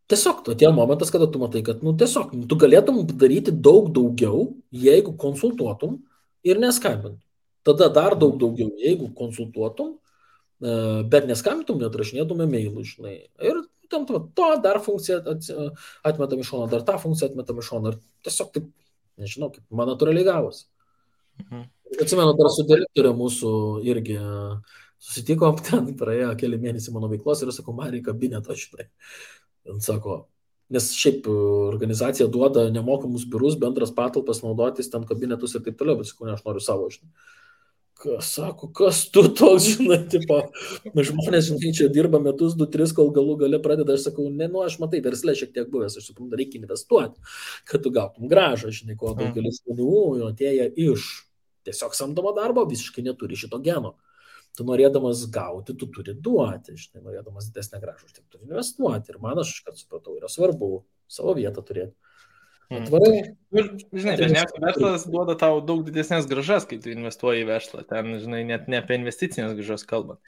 tiesiog atėjo momentas, kada tu matai, kad, tiesiog, tu galėtum daryti daug daugiau, jeigu konsultuotum ir neskambintum. Tada dar daug daugiau, jeigu konsultuotum, bet neskambintum, neatrašinėtum e-mailų, žinai. Ir tam to dar funkciją atmetam iš šono, dar tą funkciją atmetam iš šono. Ir tiesiog taip, nežinau, kaip man natūraliai gavosi. Atsimenu, dar su direktorė mūsų irgi susitikom, ten praėjo keli mėnesiai mano veiklos ir sakau, man reikia kabinetą šitai. Ir sako, nes šiaip organizacija duoda nemokamus biurus, bendras patalpas naudotis, ten kabinetus ir taip toliau, bet sakau, ne, aš noriu savo, žinai. Sako, kas tu toks, žinai, tipo, žmonės, žinai, čia dirba metus, 2-3, kol galų gale pradeda, aš sakau, aš matai, versle šiek tiek buvęs, aš suprantu, reikia investuoti, kad tu gautum grąžą, žinai, ko daugelis žmonių atėję iš tiesiog samdomo darbo, visiškai neturi šito geno. Tu norėdamas gauti, tu turi duoti, žinai, norėdamas didesnę grąžą, tu turi investuoti. Ir man, aš kad supratau, yra svarbu savo vietą turėti. Atvarai. Žinai, dažniausiai verslas duoda tau daug didesnės grąžas, kai tu investuoji į verslą. Ten, žinai, net ne apie investicinės grąžas kalbant.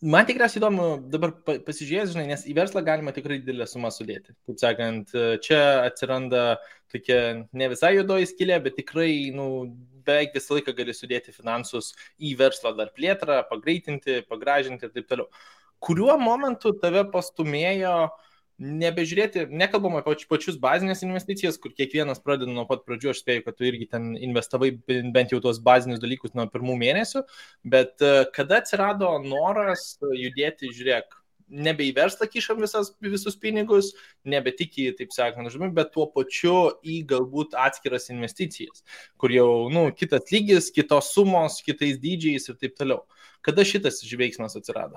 Man tikriausiai įdomu dabar pasižiūrėti, žinai, nes į verslą galima tikrai didelę sumą sudėti. Taip sakant, čia atsiranda tokia ne visai juodoji skylė, bet tikrai, beveik visą laiką gali sudėti finansus į verslą dar plėtrą, pagreitinti, pagražinti ir taip toliau. Kuriuo momentu tave pastumėjo nebežiūrėti, nekalbam apie pačius bazinės investicijas, kur kiekvienas pradeda nuo pat pradžių, aš spėju, kad tu irgi ten investavai bent jau tuos bazinius dalykus nuo pirmų mėnesių, bet kada atsirado noras judėti, žiūrėk, nebe į verslą kišam visus pinigus, nebe tik į, taip sakant, bet tuo pačiu į galbūt atskiras investicijas, kur jau, kitas lygis, kitos sumos, kitais dydžiais ir taip toliau. Kada šitas veiksmas atsirado?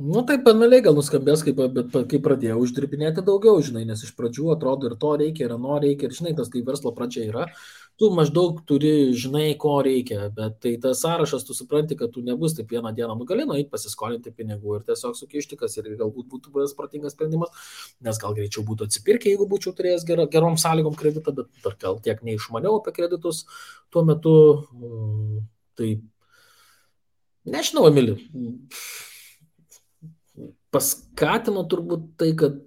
Taip banaliai gal nuskambės, bet kai pradėjau uždirbinėti daugiau, žinai, nes iš pradžių atrodo ir to reikia, ir ano reikia, ir žinai, tas kai verslo pradžia yra, tu maždaug turi, žinai, ko reikia, bet tai tas sąrašas, tu supranti, kad tu nebus taip vieną dieną, gali nueiti pasiskolinti pinigų ir tiesiog sukišti, kas ir galbūt būtų buvęs protingas sprendimas, nes gal greičiau būtų atsipirkę, jeigu būčiau turėjęs gerom sąlygom kreditą, bet dar gal tiek neišmaniau apie kreditus tuo metu, tai nežinau, Emili. Paskatino turbūt tai, kad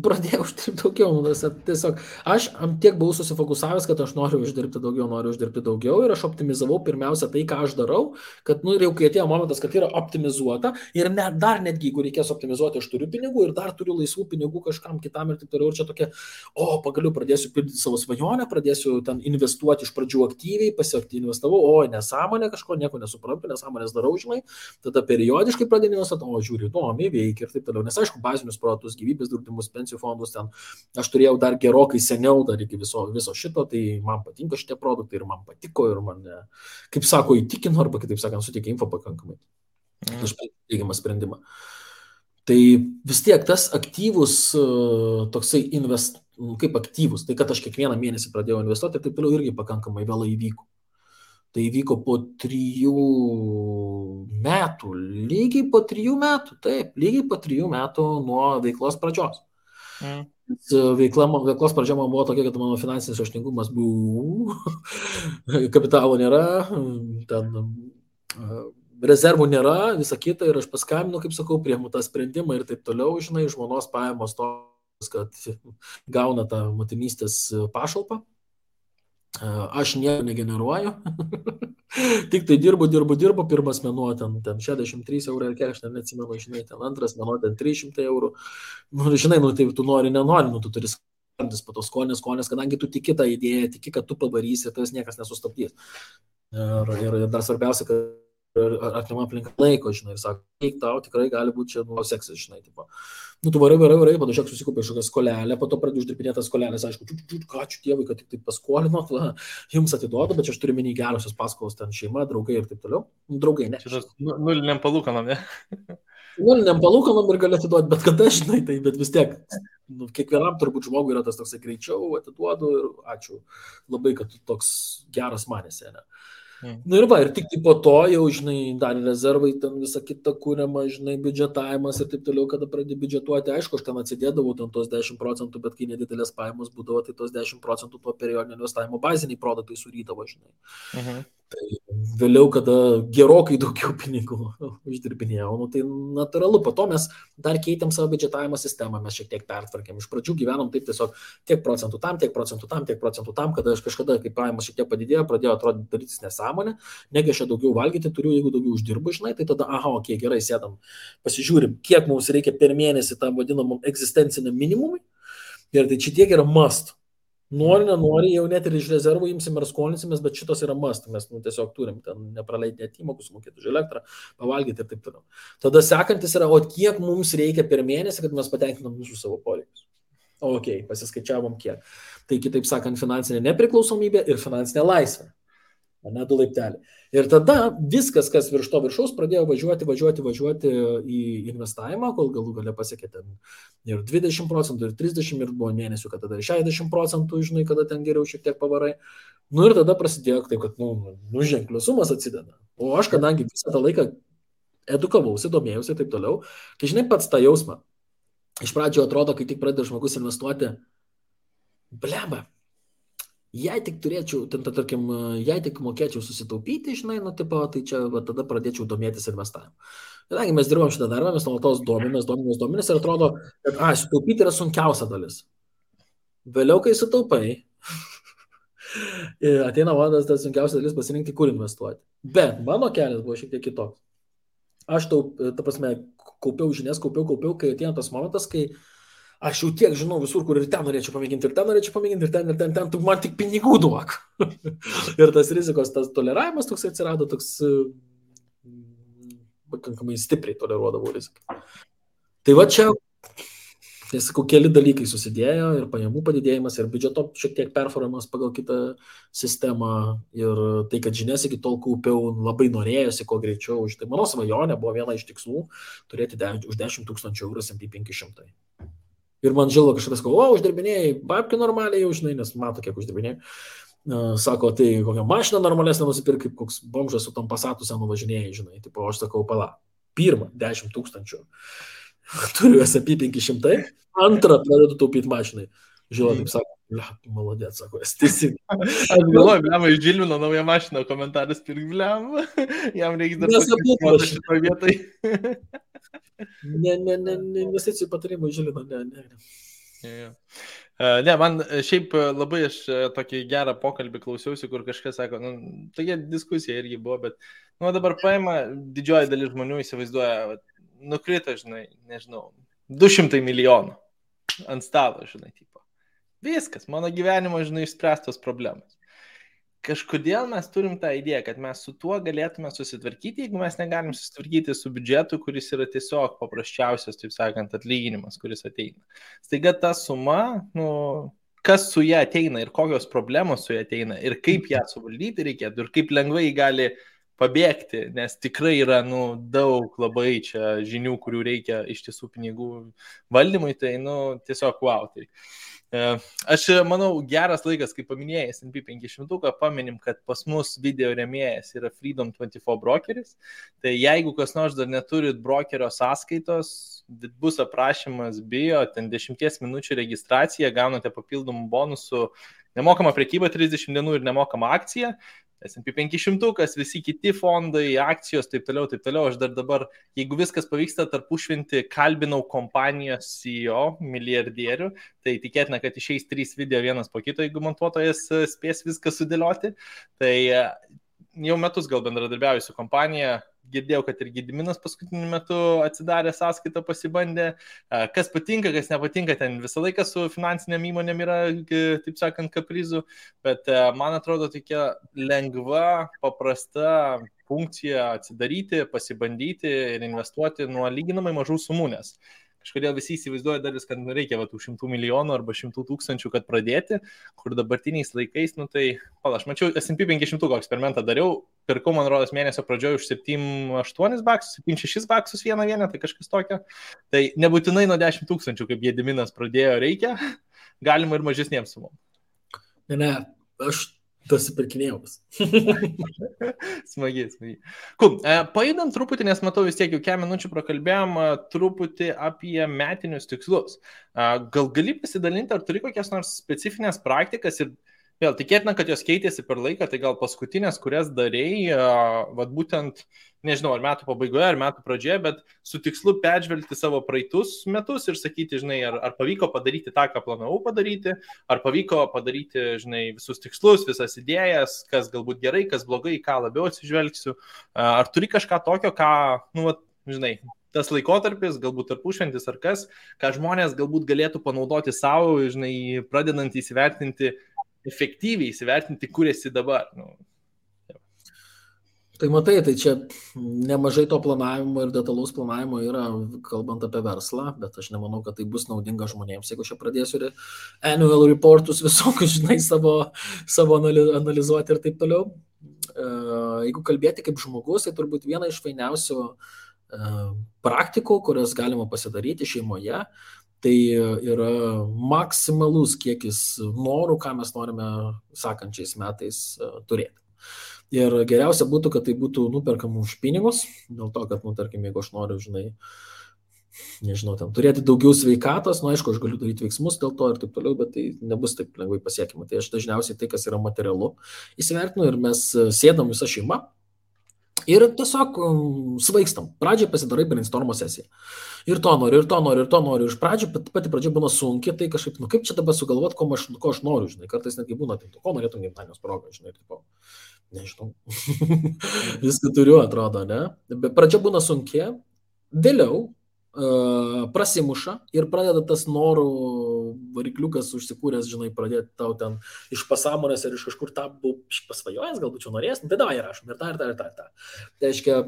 pradėjau uždirbti daugiau. Tiesiog aš tiek buvau susifokusavęs, kad aš noriu uždirbti daugiau ir aš optimizavau pirmiausia tai, ką aš darau, kad jau kai atėjo momentas, kad yra optimizuota ir dar netgi, jeigu reikės optimizuoti, aš turiu pinigų ir dar turiu laisvų pinigų kažkam kitam ir taip toliau. Ir čia tokia, pagaliau pradėsiu pildyti savo svajonę, pradėsiu ten investuoti iš pradžių aktyviai, investavau, nesąmonė kažko, nieko nesuprantu, nesąmonės darau, žinai, tada periodiškai pradėjau investuoti, žiūriu, įdomiai veikia ir taip toliau. Nes aišku, bazinius produktus, gyvybės draudimus, pensijų fondus ten aš turėjau dar gerokai seniau, dar iki viso šito, tai man patinka šitie produktai ir man patiko ir man, kaip sako, įtikino arba kitaip sakant, suteikė info pakankamai. Aš teigiamą sprendimą. Tai vis tiek tas aktyvus toksai kaip aktyvus, tai kad aš kiekvieną mėnesį pradėjau investuoti ir taip toliau irgi pakankamai vėlai įvyko. Tai įvyko po 3 metų, lygiai po 3 metų nuo veiklos pradžios. Veiklos pradžia man buvo tokia, kad mano finansinis raštingumas buvo, kapitalo nėra, ten rezervų nėra, visa kita ir aš paskambinu, kaip sakau, priimu tą sprendimą ir taip toliau, žinai, žmonos pajamos tos, kad gauna tą motinystės pašalpą. Aš nieko negeneruoju, tik tai dirbu, pirmas mėnuo ten 63 eurų ir kiek, aš neatsimenu, žinai, ten antras mėnuo ten 300 eurų, žinai, tai tu nenori, tu turi skandis po to skonės, kadangi tu tiki tą idėją, tiki, kad tu pavarysi, tas niekas nesustabdys. Ir dar svarbiausia, kad artima aplinka laiko, žinai, ir sako, eik tau, tikrai gali būti čia seksas, žinai, tipo. Tu varai, padažiak susikupė kažkokią skolelę, po to pradėjau uždirbinėti tas skolelės, aišku, ačiū Dievui, kad tik paskolinot, jums atiduodu, bet aš turiu minį gerosios paskolos, ten šeima, draugai ir taip toliau. Draugai, ne. Šitas nuliniam palūkanom, ne? Nuliniam palūkanom ir gali atiduoti bet kada, žinai, tai bet vis tiek, kiekvienam turbūt žmogui yra tas toksai greičiau, atiduodu ir ačiū labai, kad tu toks geras manėsi, ne? Na ir va, ir tik po to jau, žinai, dar rezervai, ten visą kitą kūriamą, žinai, biudžetavimas ir taip toliau, kada pradė biudžetuoti, aišku, aš ten atsidėdavau ten tos 10%, bet kai nedidelės pajamos būdavo, tai tos 10% tuo periodinio investavimo baziniai produktai surydavo, žinai. Tai vėliau, kada gerokai daugiau pinigų uždirbinėjau, nu, tai natūralu, po to mes dar keitėm savo biudžetavimo sistemą, mes šiek tiek pertvarkėm, iš pradžių gyvenom taip tiesiog tiek procentų tam, tiek procentų tam, tiek procentų tam, kada aš kažkada, kai pajamos šiek tiek padidėjo, pradėjo atrodyti darytis nesąmonė, negi aš čia daugiau valgyti turiu, jeigu daugiau uždirbu, žinai, tai tada, aha, okei, gerai, sėdam, pasižiūrim, kiek mums reikia per mėnesį tam vadinamam egzistenciniam minimumui, ir tai čia tiek yra must. Nori, nenori, jau net ir iš rezervų imsim ir skolinsimės, bet šitos yra must, mes tiesiog turim ten nepraleidinėti įmokus, mokėti už elektrą, pavalgyti ir taip toliau. Tada sekantis yra, o kiek mums reikia per mėnesį, kad mes patenkinam visus savo poreikius. Ok, pasiskaičiavom kiek. Tai kitaip sakant, finansinė nepriklausomybė ir finansinė laisvė. Ne, 2 laipteliai. Ir tada viskas, kas virš to viršaus, pradėjo važiuoti į investavimą, kol galų gale pasiekė ten ir 20%, ir 30%, ir buvo mėnesių, kad tada ir 60%, žinai, kada ten geriau šiek tiek pavarai. Nu ir tada prasidėjo taip, kad, ženklios sumas atsideda. O aš, kadangi visą tą laiką edukavausi, domėjausi ir taip toliau, tai žinai pats tą jausmą. Iš pradžio atrodo, kai tik pradeda žmogus investuoti, bleba. Jei tik turėčiau, tarkim, jei tik mokėčiau susitaupyti, žinai, tai čia tada pradėčiau domėtis investavimu. Kadangi mes dirbam šitą darbą, mes nuolatos domimės ir atrodo, kad sutaupyti yra sunkiausia dalis. Vėliau, kai sutaupai, ateina vadas, tas sunkiausia dalis pasirinkti, kur investuoti. Bet mano kelias buvo šiek tiek kitoks. Aš kaupiau žinias, kai ateina tas momentas, kai aš jau tiek žinau visur, kur ir ten norėčiau pamėginti, ir ten, tu man tik pinigų duok. Ir tas rizikos, tas toleravimas toks atsirado, toks pakankamai stipriai toleruodavau riziką. Tai va čia, tai sakau, keli dalykai susidėjo ir pajamų padidėjimas, ir biudžeto šiek tiek performavimas pagal kitą sistemą, ir tai, kad žinias iki tol kaupiau, labai norėjosi kuo greičiau. Tai mano svajonė buvo viena iš tikslų turėti už 10 000 eurų S&P 500. Ir man žilva kažkas sako, uždirbinėjai, babkių normaliai jau, žinai, nes mato, kiek uždirbinėjai. Sako, tai kokią mašiną normalesnę nusipirk, kaip koks bomžas su tom Passatu senu važinėjai, žinai. Tipo, aš sakau, pala, pirmą 10 000 turiu S&P 500, antrą pradedu taupyti mašinai. Žilva taip sako, malodėt, sako, esi. Aš galvoju, bliam, iš Žilvino naują mašiną, komentaras pirk, bliam, jam reikia dar pasakyti šitoj vietoj. Ne, investicijų patarimų Žilvino, ne. Ne, man šiaip labai aš tokį gerą pokalbį klausiausi, kur kažkas sako, tokia diskusija irgi buvo, bet dabar paima didžioji dalis žmonių įsivaizduoja, nukrito, žinai, nežinau, 200 milijonų ant stalo, žinai, tipo. Viskas, mano gyvenimo, žinai, išspręstos problemas. Kažkodėl mes turim tą idėją, kad mes su tuo galėtume susitvarkyti, jeigu mes negalim susitvarkyti su biudžetu, kuris yra tiesiog paprasčiausias, taip sakant, atlyginimas, kuris ateina. Staiga ta suma, kas su ją ateina ir kokios problemos su ją ateina ir kaip ją suvaldyti reikėtų ir kaip lengvai gali pabėgti, nes tikrai yra daug labai čia žinių, kurių reikia iš tiesų pinigų valdymui, tai tiesiog wow. Tai. Aš manau, geras laikas, kaip paminėjai S&P 500, paminim, kad pas mus video rėmėjas yra Freedom 24 brokeris, tai jeigu kas nors dar neturit brokerio sąskaitos, bus aprašymas bio, ten 10 minučių registracija, gaunate papildomų bonusų, nemokama prekyba 30 dienų ir nemokama akcija, S&P 500, visi kiti fondai, akcijos, taip toliau. Aš dar dabar, jeigu viskas pavyksta tarpušvinti, kalbinau kompanijos CEO, milijardierių, tai tikėtina, kad išeis 3 video vienas po kito, jeigu montuotojas spės viską sudėlioti. Tai jau metus gal bendradarbiauju su kompanija, girdėjau, kad ir Gediminas paskutiniu metu atsidarė sąskaitą, pasibandė. Kas patinka, kas nepatinka, ten visą laiką su finansiniam įmonėm yra, taip sakant, kaprizų, bet man atrodo tokia lengva, paprasta funkcija atsidaryti, pasibandyti ir investuoti nuo lyginamai mažų sumų, nes kažkodėl visi įsivaizduoja dalis, kad reikia tų 100 milijonų arba 100 000, kad pradėti, kur dabartiniais laikais, tai, aš mačiau S&P 500 eksperimentą dariau, pirkau, man rodos, mėnesio pradžioje už 7-8 baksus, 7-6 baksus vieną vienetą, tai kažkas tokio. Tai nebūtinai nuo 10 000, kaip Gediminas pradėjo, reikia, galima ir mažesniems sumom. Ne, aš tas įpirkinėjau. Smagiai. Cool. Pajudam truputį, nes matau vis tiek jau 4 minučių prakalbėjom truputį apie metinius tikslus. Gal gali pasidalinti, ar turi kokias nors specifines praktikas ir vėl tikėtina, kad jos keitėsi per laiką, tai gal paskutinės, kurias darėjai, vat būtent, nežinau, ar metų pabaigoje, ar metų pradžioje, bet su tikslu peržvelgti savo praeitus metus ir sakyti, žinai, ar pavyko padaryti tą, ką planavau padaryti, ar pavyko padaryti, žinai, visus tikslus, visas idėjas, kas galbūt gerai, kas blogai, ką labiau atsižvelgsiu, ar turi kažką tokio, ką, nu, vat, žinai, tas laikotarpis, galbūt tarpušventis ar kas, ką žmonės galbūt galėtų panaudoti savo, žinai, pradedant įsivertinti, efektyviai įsivertinti, kur esi dabar. Nu. Tai matai, tai čia nemažai to planavimo ir detalaus planavimo yra, kalbant apie verslą, bet aš nemanau, kad tai bus naudinga žmonėms, jeigu aš pradėsiu ir annual reportus visokius, žinai, savo analizuoti ir taip toliau. Jeigu kalbėti kaip žmogus, tai turbūt viena iš fainiausių praktikų, kurias galima pasidaryti šeimoje, tai yra maksimalus kiekis norų, ką mes norime sekančiais metais turėti. Ir geriausia būtų, kad tai būtų nuperkama už pinigus, dėl to, kad, tarkim, jeigu aš noriu, žinai, nežinau, ten turėti daugiau sveikatos, aišku, aš galiu daryti veiksmus dėl to ir taip toliau, bet tai nebus taip lengvai pasiekima. Tai aš dažniausiai tai, kas yra materialu, įsivertinu ir mes sėdam visą šeimą. Ir tiesiog svaigstam. Pradžiai pasidarai brainstormo sesiją. Ir to noriu. Iš pradžių, pati pradžia būna sunki, tai kažkaip, kaip čia dabar sugalvot, ko aš noriu, žinai. Kartais netgi būna, tai ko norėtum gimtadienio progą, žinai. Tipo, nežinau. Viską turiu, atrodo, ne? Bet pradžia būna sunki, vėliau prasimuša ir pradeda tas norų varikliukas užsikūręs, žinai, pradėti tau ten iš pasąmonės ir iš kažkur tą pasvajojęs, galbūt čia norės, tai davai rašom ir tą. Tai reiškia,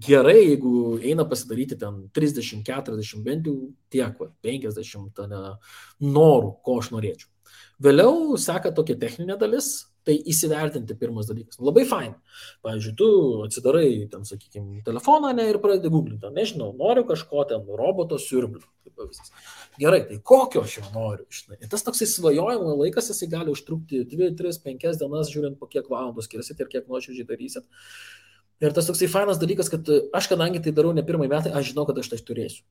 gerai, jeigu eina pasidaryti ten 30, 40, bent jau tiek, 50 norų, ko aš norėčiau. Vėliau seka tokia techninė dalis, tai įsivertinti pirmas dalykas. Labai fain. Pavyzdžiui, tu atsidarai, ten, sakykime, telefoną ir pradedi googlinti. Nežinau, noriu kažko ten, roboto siurblio. Gerai, tai kokio aš jau noriu? Žinai. Ir tas toksai svajojimo laikas, jisai gali užtrukti 2, 3, 5 dienas, žiūrint po kiek valandų skirsit ir kiek nuoširdžiai darysit. Ir tas toksai fainas dalykas, kad aš, kadangi tai darau ne pirmąjį metą, aš žinau, kad aš tai turėsiu.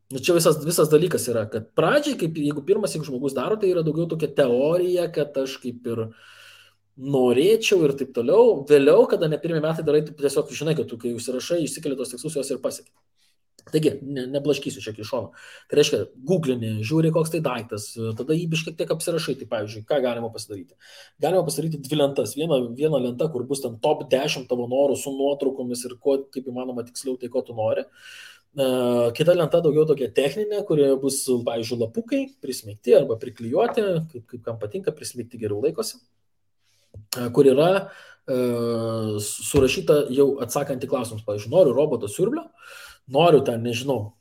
Čia visas dalykas yra, kad pradžiai, jeigu žmogus daro, tai yra daugiau tokia teorija, kad aš kaip ir norėčiau ir taip toliau. Vėliau, kada ne pirmie metai darai, tai tiesiog žinai, kad tu, kai užsirašai, išsikeli tos tikslus, jos ir pasieki. Taigi, neblaškysiu čia iš šono. Tai reiškia, googlini, žiūri, koks tai daiktas, tada jį biškiek tiek apsirašai. Tai pavyzdžiui, ką galima pasidaryti? Galima pasidaryti 2 lentas. Viena lenta, kur bus ten top 10 tavo norų su nuotraukomis ir ko, kaip įmanoma tiksliau, tai ko tu nori. Kita lenta daugiau tokia techninė, kurioje bus, pavyzdžiui, lapukai prismeigti arba priklijuoti, kaip kam patinka, prismeigti geriau laikosi, kur yra surašyta jau atsakant į klausimus. Pavyzdžiui, noriu roboto siurblio, noriu ten, nežinau,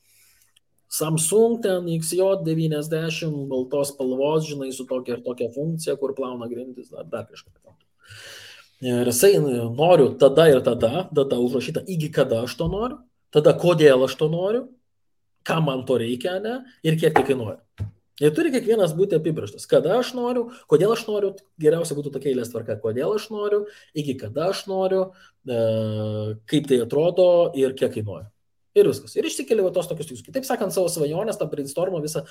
Samsung ten XJ90 baltos spalvos, žinai, su tokia ir tokia funkcija, kur plauna grindis, dar kažką. Ir jisai noriu tada ir tada, data užrašyta, iki kada aš to noriu. Tada kodėl aš to noriu, ką man to reikia, ne, ir kiek tai kainuoja. Ir turi kiekvienas būti apibrėžtas. Kada aš noriu, kodėl aš noriu, geriausia būtų tokia eilės tvarka, kodėl aš noriu, iki kada aš noriu, kaip tai atrodo ir kiek kainuoja. Ir viskas. Ir išsikeli tos tokius tikslus. Kitaip sakant, savo svajonės, tą brainstormą visą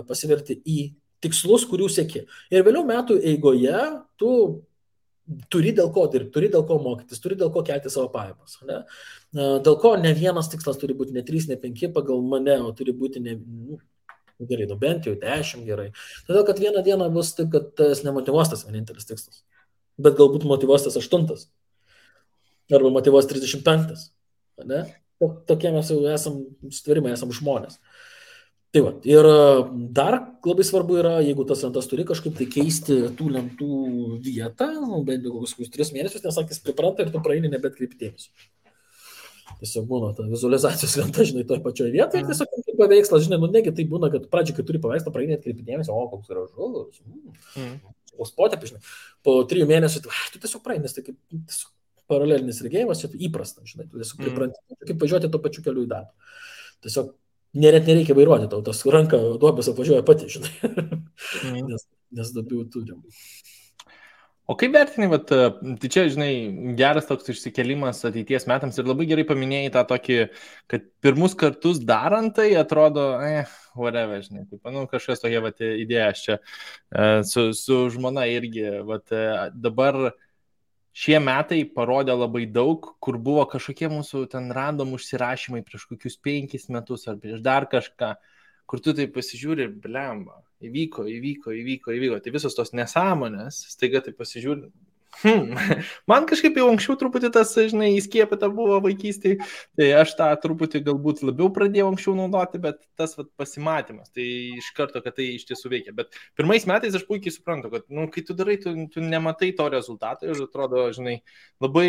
pasiverti į tikslus, kurių sieki. Ir vėliau metų eigoje tu turi dėl ko dirbti, turi dėl ko mokytis, turi dėl ko kelti savo pajamas. Ne? Dėl ko ne vienas tikslas turi būti ne 3, ne 5 pagal mane, o turi būti gerai, bent jau 10 gerai. Todėl, kad vieną dieną bus taip, kad tas nemotyvuos tas vienintelis tikslas. Bet galbūt motyvuos tas 8. Arba motyvuos 35. Ne? Tokie mes jau sutvarimai, esam žmonės. Tai va, ir dar labai svarbu yra, jeigu tas lentas turi kažkaip tai keisti tų lentų vietą, bent jau kokius 3 mėnesius, nes sakys pripranta ir tu praeini nebetkreipi dėmesio. Tiesiog būna ta vizualizacijos lenta, žinai, toje pačioje vietoje, tiesiog kaip paveikslas, žinai, negi tai būna, kad pradžiai, kai turi paveikslą, praeini atkreipi dėmesio, o koks gražus, o spotė, žinai, po 3 mėnesių, tu tiesiog praeini, tai kaip tiesiog paralelinis regėjimas, čia įprasta, žinai, tu tiesiog pripranti, kaip važiuoti to pačiu keliu į darbą. Tiesiog net nereikia vairuoti, tau tas ranka duobės apvažiuoja pati, žinai, nes daugiau turim. O kaip vertini, tai čia, žinai, geras toks išsikelimas ateities metams ir labai gerai paminėjai tą tokį, kad pirmus kartus darant tai atrodo, whatever, žinai, kažkas tokia idėja čia su žmona irgi, dabar šie metai parodė labai daug, kur buvo kažkokie mūsų ten random užsirašymai prieš kokius 5 metus ar prieš dar kažką, kur tu tai pasižiūri, blemba, įvyko. Tai visos tos nesąmonės, staiga tai pasižiūri. Man kažkaip jau anksčiau truputį tas, žinai, įskiepita buvo vaikystėje, tai aš tą truputį galbūt labiau pradėjau anksčiau naudoti, bet tas pasimatymas, tai iš karto, kad tai iš tiesų veikia. Bet pirmais metais aš puikiai suprantu, kad, kai tu darai, tu nematai to rezultato ir atrodo, žinai, labai,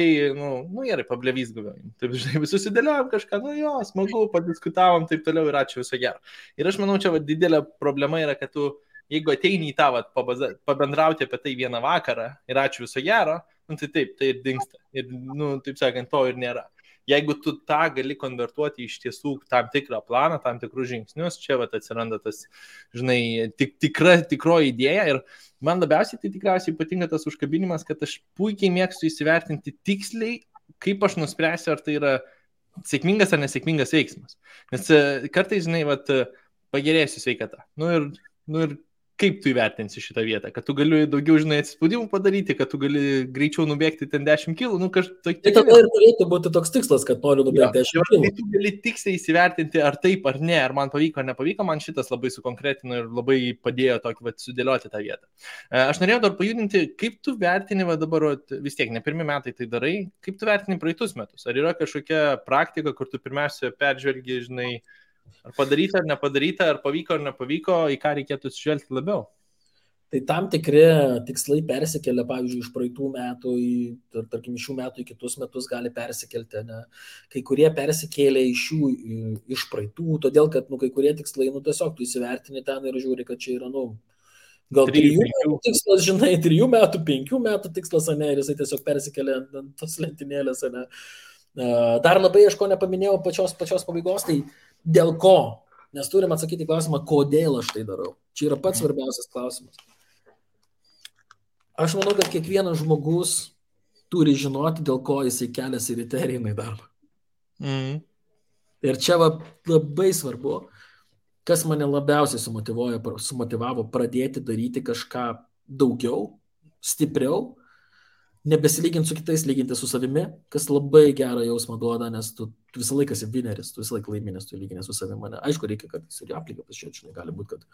gerai, pablevys gavėjim. Taip, žinai, visus įdėliojom kažką, smagu, padiskutavom, taip toliau ir ačiū, viso gero. Ir aš manau, čia didelė problema yra, kad tu jeigu ateini į tą pabendrauti apie tai vieną vakarą ir ačiū viso gero, tai taip, tai ir dingsta. Ir, taip sakant, to ir nėra. Jeigu tu tą gali konvertuoti iš tiesų tam tikrą planą, tam tikrus žingsnius, čia atsiranda tas, žinai, tikroji idėja. Ir man labiausiai tai tikriausiai patinka tas užkabinimas, kad aš puikiai mėgstu įsivertinti tiksliai, kaip aš nuspręsiu, ar tai yra sėkmingas ar nesėkmingas veiksmas. Nes kartais, žinai, pagerėsiu sveikatą. Ir kaip tu įvertinsi šitą vietą, kad tu gali daugiau, žinai, atsispaudimų padaryti, kad tu gali greičiau nubėgti ten 10 kilų, Tai tada ir turėtų būti toks tikslas, kad noriu nubėgti 10 kilų. Tai tu gali tiksliai įsivertinti, ar taip, ar ne, ar man pavyko, ar nepavyko, man šitas labai sukonkretino ir labai padėjo tokį sudėlioti tą vietą. Aš norėjau dar pajudinti, kaip tu vertini, dabar vis tiek, ne pirmi metai tai darai, kaip tu vertini praeitus metus? Ar yra kažkokia praktika, kur tu pirmiausia peržvelgi, žinai, ar padaryta, ar nepadaryta, ar pavyko, ar nepavyko, į ką reikėtų atsižvelgti labiau? Tai tam tikri tikslai persikelia, pavyzdžiui, iš praeitų metų, tarkim, šių metų į kitus metus gali persikelti, ne? Kai kurie persikėlė iš praeitų, todėl, kad, kai kurie tikslai, tiesiog tu įsivertini ten ir žiūri, kad čia yra, gal 3 metų tikslas, žinai, 3 metų, 5 metų tikslas, ne, ir jisai tiesiog persikėlė ant tos lentynėlės, ne. Dar labai, aš ko nepaminėjau pačios pabaigos, tai dėl ko? Nes turim atsakyti klausimą, kodėl aš tai darau. Čia yra pats svarbiausias klausimas. Aš manau, kad kiekvienas žmogus turi žinoti, dėl ko jisai keliasi ryte ir eina į darbą. Ir čia labai svarbu, kas mane labiausiai sumotivavo pradėti daryti kažką daugiau, stipriau, nebesilyginti su kitais, lyginti su savimi, kas labai gerą jausmą duoda, nes tu visą laiką esi vineris, tu visą laiką laimės, tu lyginės su savimi. Aišku, reikia, kad ir aplinką pasižiūrėti, žinai, gali būti, kad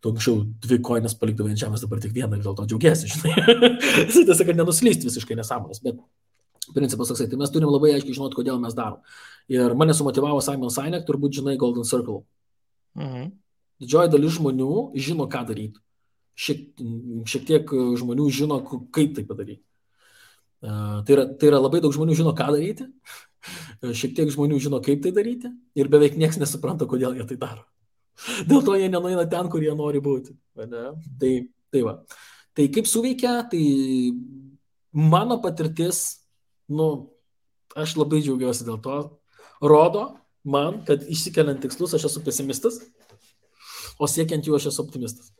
tu anksčiau 2 koinas palikdavai ant žemės, dabar tik 1 ir dėl to džiaugiesi, žinai. Tiesa, kad nenuslysti visiškai nesąmonės, bet principas toksai, tai mes turim labai aiškiai žinoti, kodėl mes darom. Ir mane sumotivavo Simon Sinek, turbūt žinai Golden Circle. Didžioji dalis žmonių žino, ką daryti. Šiek tiek žmonių žino, kaip tai padaryti. Tai yra labai daug žmonių žino, ką daryti, šiek tiek žmonių žino, kaip tai daryti ir beveik niekas nesupranta, kodėl jie tai daro. Dėl to jie nenueina ten, kur jie nori būti. Tai va. Tai kaip suveikia, tai mano patirtis, aš labai džiaugiuosi dėl to, rodo man, kad išsikeliant tikslus aš esu pesimistas, o siekiant jų aš esu optimistas.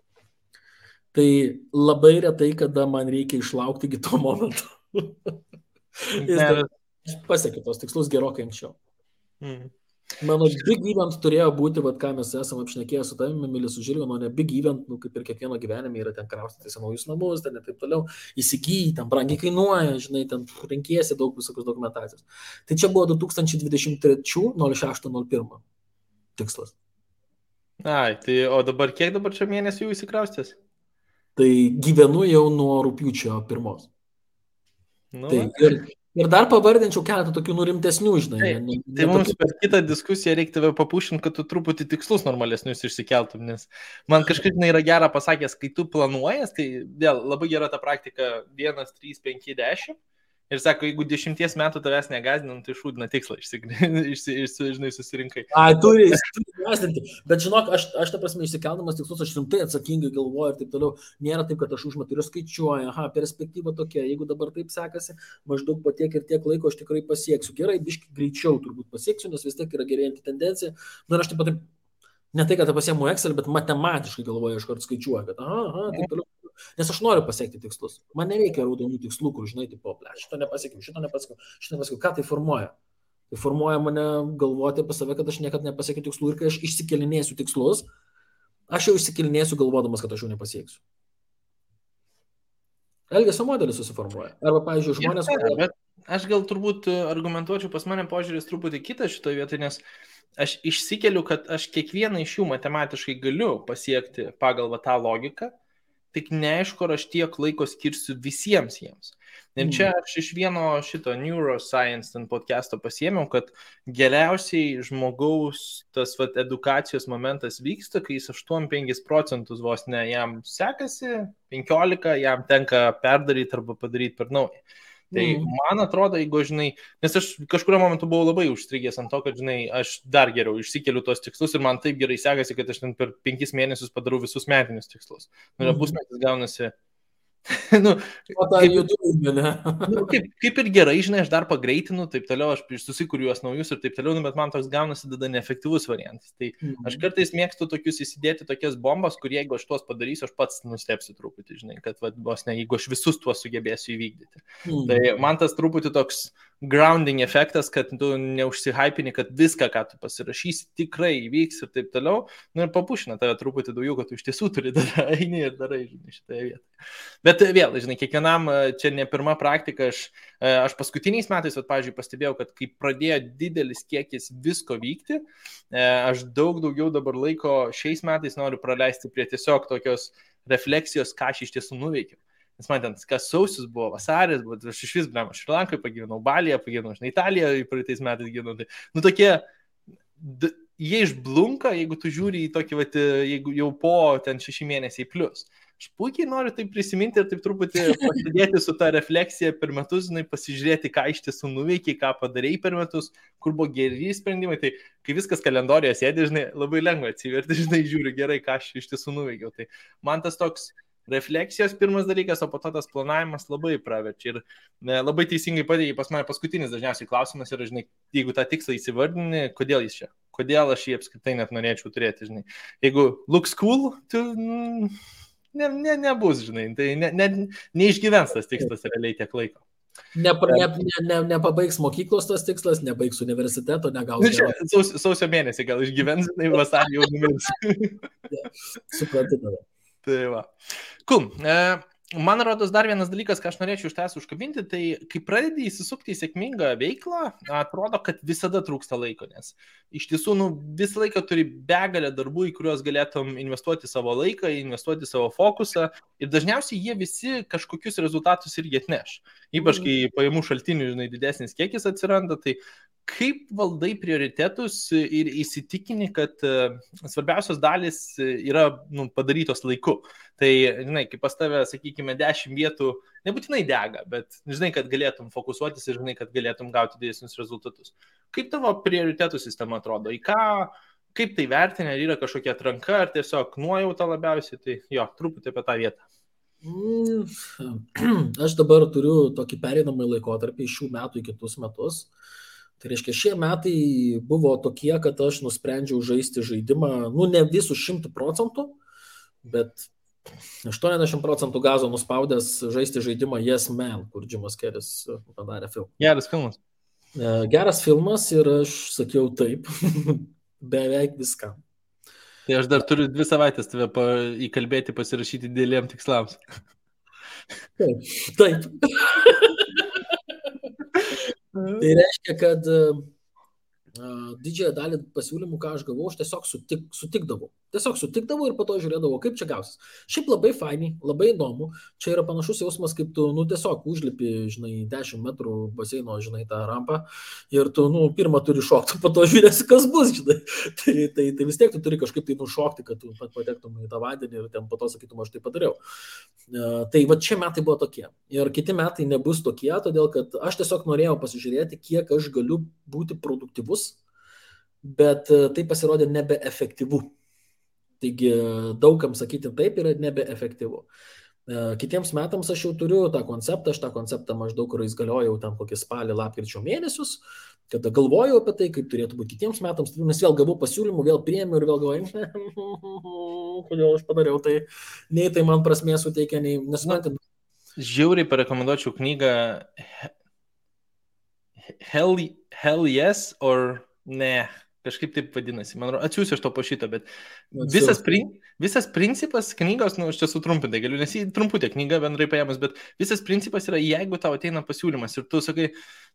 Tai labai retai, kada man reikia išlaukti iki to momento. Aš pasiekiu tos tikslus gerokai anksčiau. Mano big event turėjo būti, ką mes esame apšnekėję su tavimi, Milis, su Žilvinu, ne big event, kaip ir kiekvieno gyvenime yra ten kraustytis naujus namus, ten ir taip toliau, įsigyti, ten brangiai kainuoja, žinai, ten renkiesi daug visokios dokumentacijos. Tai čia buvo 2023 06/01 tikslas. Tai o dabar kiek dabar čia mėnesių įsikraustės? Tai gyvenu jau nuo rugpjūčio 1. Ir dar pavardinčiau keletą tokių rimtesnių, žinai. Tai mums per kitą diskusiją reikia tave papušinti, kad tu truputį tikslus normalesnius išsikeltum, nes man kažkaip yra gera pasakęs, kai tu planuojas, tai vėl labai gera ta praktika 1, 3, 5, 10 Ir sako, jeigu 10 metų tavęs negazdinam, tai šūdina tikslą, žinai, susirinkai. Turi gazdinti. Bet žinok, aš ta prasme išsikeldamas tikslus, aš rimtai atsakingai galvoju ir taip toliau. Nėra taip, kad aš užmetu ir skaičiuoju, perspektyva tokia, jeigu dabar taip sekasi, maždaug po tiek ir tiek laiko aš tikrai pasieksiu. Gerai, biški greičiau turbūt pasieksiu, nes vis tiek yra gerėjanti tendencija. Na ir aš taip pat, ne tai, kad pasiemu Excel, bet matematiškai galvoju, aš kart skaičiuoju, kad taip toliau. Nes aš noriu pasiekti tikslus. Man nereikia raudonų tikslų, kur žinai, tipo, šito nepasiekiau. Ką tai formuoja? Tai formuoja mane galvoti apie save, kad aš niekada nepasiekiu tikslų ir kai aš išsikelinėsiu tikslus, aš jau išsikelinėsiu galvodamas, kad aš jau nepasieksiu. Elgesio modelis susiformuoja. Arba, pavyzdžiui, žmonės... Bet aš gal turbūt argumentuočiau, pas mane požiūris truputį kitas šitoje vietoje, nes aš išsikeliu, kad aš kiekvieną iš jų matematiškai galiu pasiekti pagal tą logiką, tik neaišku, ar aš tiek laiko skirsiu visiems jiems. Ir čia aš iš vieno šito Neuroscience podcast'o pasiėmiau, kad geriausiai žmogaus tas edukacijos momentas vyksta, kai jis 8-5% vos ne jam sekasi, 15% jam tenka perdaryti arba padaryti per naują. Tai man atrodo, jeigu, žinai, nes aš kažkurio momentu buvau labai užstrigęs ant to, kad, žinai, aš dar geriau išsikeliu tos tikslus ir man taip gerai sekasi, kad aš ten per 5 mėnesius padarau visus metinius tikslus. Pusmetis gaunasi. Kaip ir gerai, žinai, aš dar pagreitinu, taip toliau, aš susikuriu juos naujus ir taip toliau, bet man toks gaunasi tada neefektyvus variantas. Tai aš kartais mėgstu tokius įsidėti tokias bombas, kur jeigu aš tuos padarysiu, aš pats nustepsiu truputį, žinai, kad vos ne, jeigu aš visus tuos sugebėsiu įvykdyti. Tai man tas truputį toks grounding efektas, kad tu neužsihypini, kad viską, ką tu pasirašysi, tikrai įvyks ir taip toliau, ir papušina tave truputį daugiau, kad tu iš tiesų turi eini ir darai, žinai, šitoje vietoje. Bet vėl, žinai, kiekvienam čia ne pirma praktika, aš paskutiniais metais, pavyzdžiui, pastebėjau, kad kai pradėjo didelis kiekis visko vykti, aš daug daugiau dabar laiko šiais metais noriu praleisti prie tiesiog tokios refleksijos, ką aš iš tiesų nuveikiau. Nes man ten, kas sausis buvo, vasaris, bet aš iš vis, blema, Šrilankai pagyvenau, Balyje pagyvenau, žinai, Italijoje praeitais metais gyvenau. Tai, tokie, jie išblunka, jeigu tu žiūri į tokį, jeigu jau po ten 6 mėnesiai plus. Aš puikiai noriu tai prisiminti ir taip truputį pasidėti su ta refleksija per metus, žinai, pasižiūrėti, ką iš tiesų nuveikiai, ką padarei per metus, kur buvo geri sprendimai. Tai kai viskas kalendorijoje sėdi, žinai, labai lengva atsiverti, žinai, žiūri gerai, ką aš iš tiesų nuveikiau. Tai man tas toks refleksijos pirmas dalykas, o po to tas planavimas labai praverčia. Ir labai teisingai pateikė pas mane paskutinis dažniausiai klausimas yra, žinai, jeigu tą tikslą įsivardini, kodėl jis čia? Kodėl aš jį apskritai net norėčiau turėti, žinai. Jeigu looks cool, tu nebus, žinai, tai neišgyvens tas tikslas realiai tiek laiko. Nepabaigs mokyklos tas tikslas, nebaigs universiteto, negaus. Sausio mėnesį gal išgyvens, žinai, vasarį jau numirs. Suprantu tada. Tai va. Cool. Man rodos dar vienas dalykas, ką aš norėčiau iš tavęs užkabinti, tai kai pradedi įsisukti į sėkmingą veiklą, atrodo, kad visada trūksta laiko, nes iš tiesų visą laiką turi begalę darbų, į kuriuos galėtum investuoti savo laiką, investuoti savo fokusą ir dažniausiai jie visi kažkokius rezultatus irgi atneš. Ypač kai pajamų šaltinių, žinai, didesnis kiekis atsiranda, tai kaip valdai prioritetus ir įsitikini, kad svarbiausios dalis yra padarytos laiku. Tai, žinai, kaip pas tave, sakykime, 10 vietų nebūtinai dega, bet žinai, kad galėtum fokusuotis ir žinai, kad galėtum gauti didesnius rezultatus. Kaip tavo prioritetų sistema atrodo? Į ką, kaip tai vertinė, ar yra kažkokia atranka, ar tiesiog nuojauta labiausiai? Tai jo, truputį apie tą vietą. Aš dabar turiu tokį pereinamąjį laikotarpį iš šių metų į kitus metus. Tai reiškia, šie metai buvo tokie, kad aš nusprendžiau žaisti žaidimą, ne visų 100%, bet 80% gazo nuspaudęs žaisti žaidimą Yes Man, kur Jimas Keris padarė filmą. Geras filmas. Geras filmas ir aš sakiau taip, beveik viskam. Tai aš dar turiu 2 savaitės tave įkalbėti pasirašyti dideliem tikslams. Taip. Tai reiškia, kad didžiąją dalį pasiūlymų, ką aš gavau, aš tiesiog sutikdavau. Tiesiog sutikdavau ir po to žiūrėdavau, kaip čia gausis. Šiaip labai fainiai, labai įdomu. Čia yra panašus jausmas, kaip tu, tiesiog užlipi, žinai, 10 metrų baseino, žinai, tą rampą ir tu, pirmą turi šokti, po to žiūrėsi, kas bus, žinai. Tai vis tiek tu turi kažkaip tai nušokti, kad tu patektum į tą vandenį ir ten po to sakytum, aš tai padariau. Tai va šie metai buvo tokie. Ir kiti metai nebus tokie, todėl kad aš tiesiog norėjau pasižiūrėti, kiek aš galiu būti produktyvus, bet tai pasirodė nebeefektyvu. Taigi daugam sakyti taip yra nebeefektyvu. Kitiems metams aš jau turiu tą konceptą, aš tą konceptą maždaug, kuris galiojau ten kokį spalį, lapkričio mėnesius, kada galvojau apie tai, kaip turėtų būti kitiems metams, nes vėl gavau pasiūlymų, vėl priėmiau ir vėl galvojau, kodėl aš padariau tai, nei tai man prasmės suteikia, nei nesuprantam. Žiauriai parekomenduočiau knygą Hell Yes or Ne. Kažkaip taip vadinasi. Man atsiųsiu iš to po šito, bet visas principas knygos, aš čia sutrumpintai galiu, nes jį trumputė knyga bendrai paėmus, bet visas principas yra, jeigu tau ateina pasiūlymas ir tu sakai,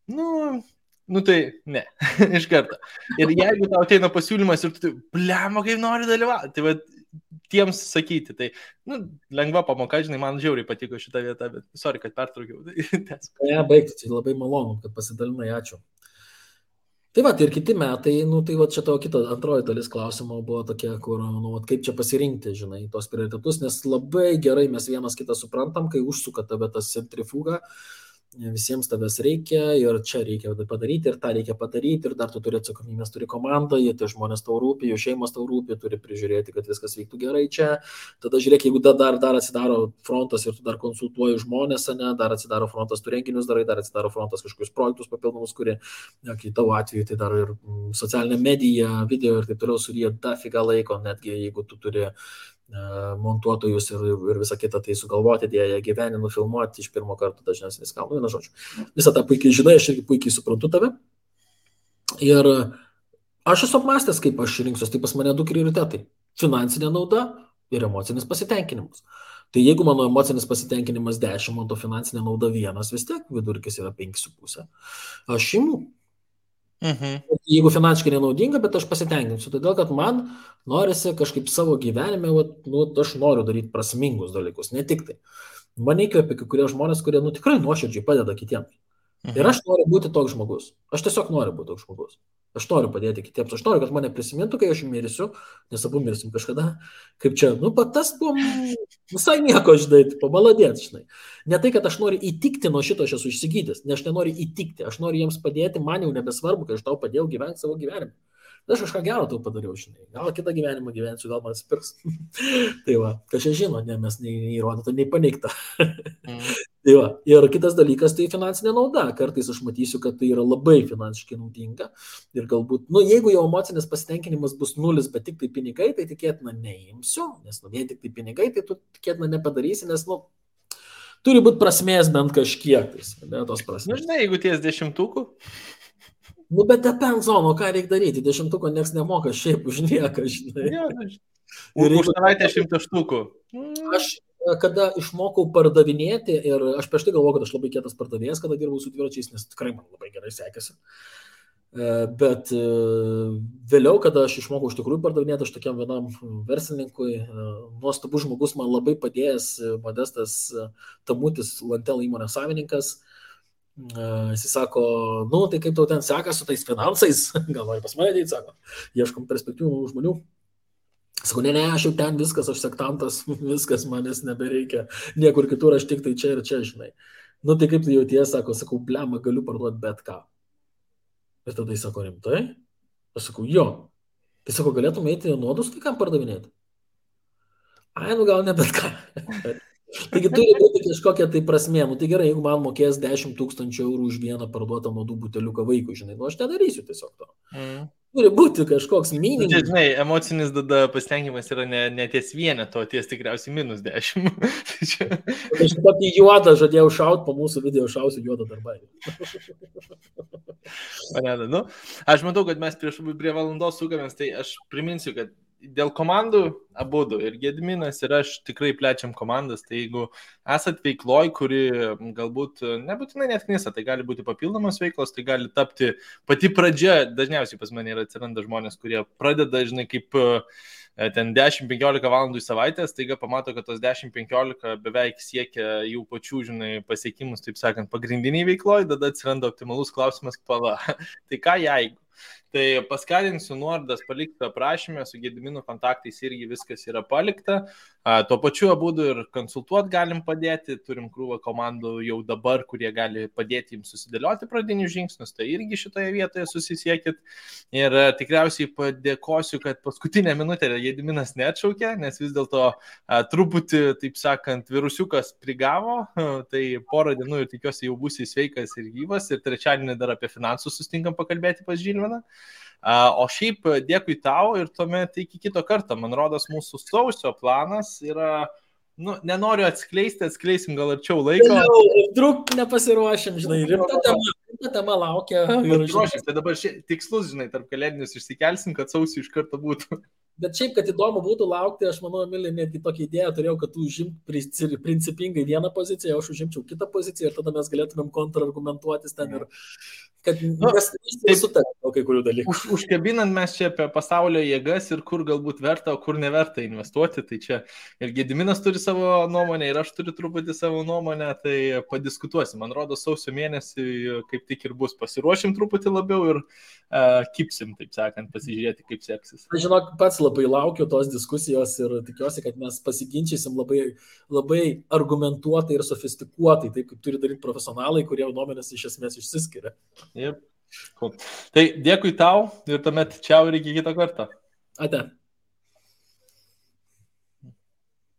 nu tai ne, iš karto. Ir jeigu tau ateina pasiūlymas ir tu, blemo, kaip nori dalyvauti, tai va, tiems sakyti, tai, lengva pamoka, žinai, man žiauriai patiko šitą vietą, bet sorry, kad pertraukiau. Ne, baigti, tai labai malonu, kad pasidalinai, ačiū. Tai va, ir kiti metai, tai va čia tavo kita antroji dalis klausimo buvo tokia, kur, kaip čia pasirinkti, žinai, tos prioritetus, nes labai gerai mes vienas kitą suprantam, kai užsuka tave tas centrifuga, visiems tavęs reikia ir čia reikia padaryti ir tą reikia padaryti ir dar tu turi atsakomybės, turi komandą, jie tie žmonės tau rūpi, jų šeimas tau rūpi, turi prižiūrėti, kad viskas vyktų gerai čia. Tada žiūrėk, jeigu dar atsidaro frontas ir tu dar konsultuoji žmonės, ne, dar atsidaro frontas, tu renginius darai, dar atsidaro frontas kažkokius projektus papildomus, kurie, kai tavo atveju tai dar ir socialinė medija, video ir taip toliau suryja dafiga laiko, netgi jeigu tu turi montuotojus ir visą kitą tai sugalvoti, jie gyvenį nufilmuoti iš pirmo karto dažniausiai neskam. Viena žodžiu. Visą tą puikiai žinai, aš irgi puikiai suprantu tave. Ir aš esu apmąstęs, kaip aš rinksiuos, tai pas mane du prioritetai. Finansinė nauda ir emocinis pasitenkinimas. Tai jeigu mano emocinis pasitenkinimas 10, o to finansinė nauda 1, vis tiek vidurkis yra 5,5. Aš imu. Jeigu finansiškai nenaudinga, bet aš pasitenkinsiu, todėl kad man norisi kažkaip savo gyvenime, aš noriu daryti prasmingus dalykus, ne tik tai. Man įkvėpia kai kurie žmonės, kurie tikrai nuoširdžiai padeda kitiems. Ir aš noriu būti toks žmogus. Aš tiesiog noriu būti toks žmogus. Aš noriu padėti kitiems. Aš noriu, kad mane prisimintų, kai aš mirsiu, nes abu mirsim kažkada. Kaip čia, tas buvo visai nieko, žinai, pamaladėt, žinai. Ne tai, kad aš noriu įtikti nuo šito, aš esu išsigydęs, nes aš nenoriu įtikti. Aš noriu jiems padėti, man jau nebesvarbu, kai aš tau padėjau gyventi savo gyvenimą. Aš kažką gero tau padariau, žinai. Gal kitą gyvenimą gyvensiu, gal man atsipirks. Tai va, kažkai žino, ne, mes nei įrodyta, nei paneigta. Tai va, ir kitas dalykas tai finansinė nauda. Kartais aš matysiu, kad tai yra labai finansiškai naudinga. Ir galbūt, jeigu jau emocinis pasitenkinimas bus 0, bet tik tai pinigai, tai tikėtina neimsiu, nes vien tik tai pinigai, tai tu tikėtina nepadarysi, nes, turi būti prasmės bent kažkiek, ne tos prasmės. Žinai, jeigu ties 10. Bet depends on, ką reikia daryti. 10 nieks nemoka šiaip už nieką, žinai. Ir už savaitę 100 štukų. Aš, kada išmokau pardavinėti, ir aš prieš tai galvoju, kad aš labai kietas pardavėjas, kada dirbau su dviračiais, nes tikrai man labai gerai sekėsi. Bet vėliau, kada aš išmokau iš tikrųjų pardavinėti, aš tokiam vienam verslininkui, nuostabus žmogus, man labai padėjęs Modestas Tamutis, Lantel įmonės savininkas. Jis sako, tai kaip tau ten seka su tais finansais, gal nori pas mane ateiti, sako, ieškom perspektyvų žmonių. Sako, ne, aš jau ten viskas, aš sektantas, viskas manęs nebereikia, niekur kitur, aš tik tai čia ir čia, žinai. Tai kaip tu jauties, sakau, blema, galiu parduoti bet ką. Ir tada jis sako, rimtai? Aš sakau, jo. Tai sako, galėtum eiti nuodus kai kam pardavinėti? Gal ne bet ką. Taigi turi būti kažkokia tai prasmė. Tai gerai, jeigu man mokės 10 000 eurų už vieną parduotą nuodų buteliuką vaikui, žinai, aš nedarysiu tiesiog to. Turi būti kažkoks minimumas. Žinai, emocinis pasitenkinimas yra ne ties vieneto, ties tikriausiai -10. Aš tokį juodą žadėjau šauti, po mūsų video šausiu juodą darbą. Aš matau, kad mes prie valandos sukamės, tai aš priminsiu, kad dėl komandų abudu ir Gediminas ir aš tikrai plečiam komandas, tai jeigu esat veikloj, kuri galbūt nebūtinai net knisa, tai gali būti papildomos veiklos, tai gali tapti pati pradžia, dažniausiai pas mane atsiranda žmonės, kurie pradeda, žinai, kaip ten 10-15 valandų į savaitę, staiga pamato, kad tos 10-15 beveik siekia jų pačių, žinai, pasiekimus, taip sakant, pagrindiniai veikloj, tada atsiranda optimalus klausimas, tai ką jeigu? Tai paskatinsiu nuorodas palikti aprašymę, su Gedimino kontaktais irgi viskas yra palikta. Tuo pačiu būdu ir konsultuoti galim padėti, turim krūvą komandų jau dabar, kurie gali padėti jums susidėlioti pradinius žingsnius, tai irgi šitoje vietoje susisiekit. Ir tikriausiai padėkosiu, kad paskutinę minutę Gediminas neatšaukė, nes vis dėlto truputį, taip sakant, virusiukas prigavo, tai porą dienų ir tikiuosi jau būsi sveikas ir gyvas ir trečiadienį dar apie finansus sustinkam pakalbėti pas Žilviną. O šiaip dėkui tau ir tuomet iki kito karto. Man rodos, mūsų sausio planas yra, nenoriu atskleisim gal arčiau laiko. Truk nepasiruošim, žinai, rimta tema laukia. Tai dabar tikslus, žinai, tarp kalėdinius išsikelsim, kad sausio iš karto būtų. Bet šiaip, kad įdomu būtų laukti, aš manau, Emilė, netgi tokią idėją turėjau, kad tu užimt principingai vieną poziciją, aš užimčiau kitą poziciją ir tada mes galėtumėm kontrargumentuotis ten ir kad nesutarėm kai kurių dalykų. Užkabinant mes čia apie pasaulio jėgas ir kur galbūt verta, o kur neverta investuoti, tai čia ir Gediminas turi savo nuomonę ir aš turiu truputį savo nuomonę, tai padiskutuosim. Man rodo, sausio mėnesį kaip tik ir bus, pasiruošim truputį labiau ir kipsim, taip sakant, pasižiūrėti, kaip seksis. Aš žinok, pats labai laukiu tos diskusijos ir tikiuosi, kad mes pasiginčysim labai, labai argumentuotai ir sofistikuotai, taip kaip turi daryti profesionalai, kurie nuomonės iš esmės išsiskiria. Yep. Cool. Tai dėkui tau ir tuomet čiau ir iki kito karto. Ate.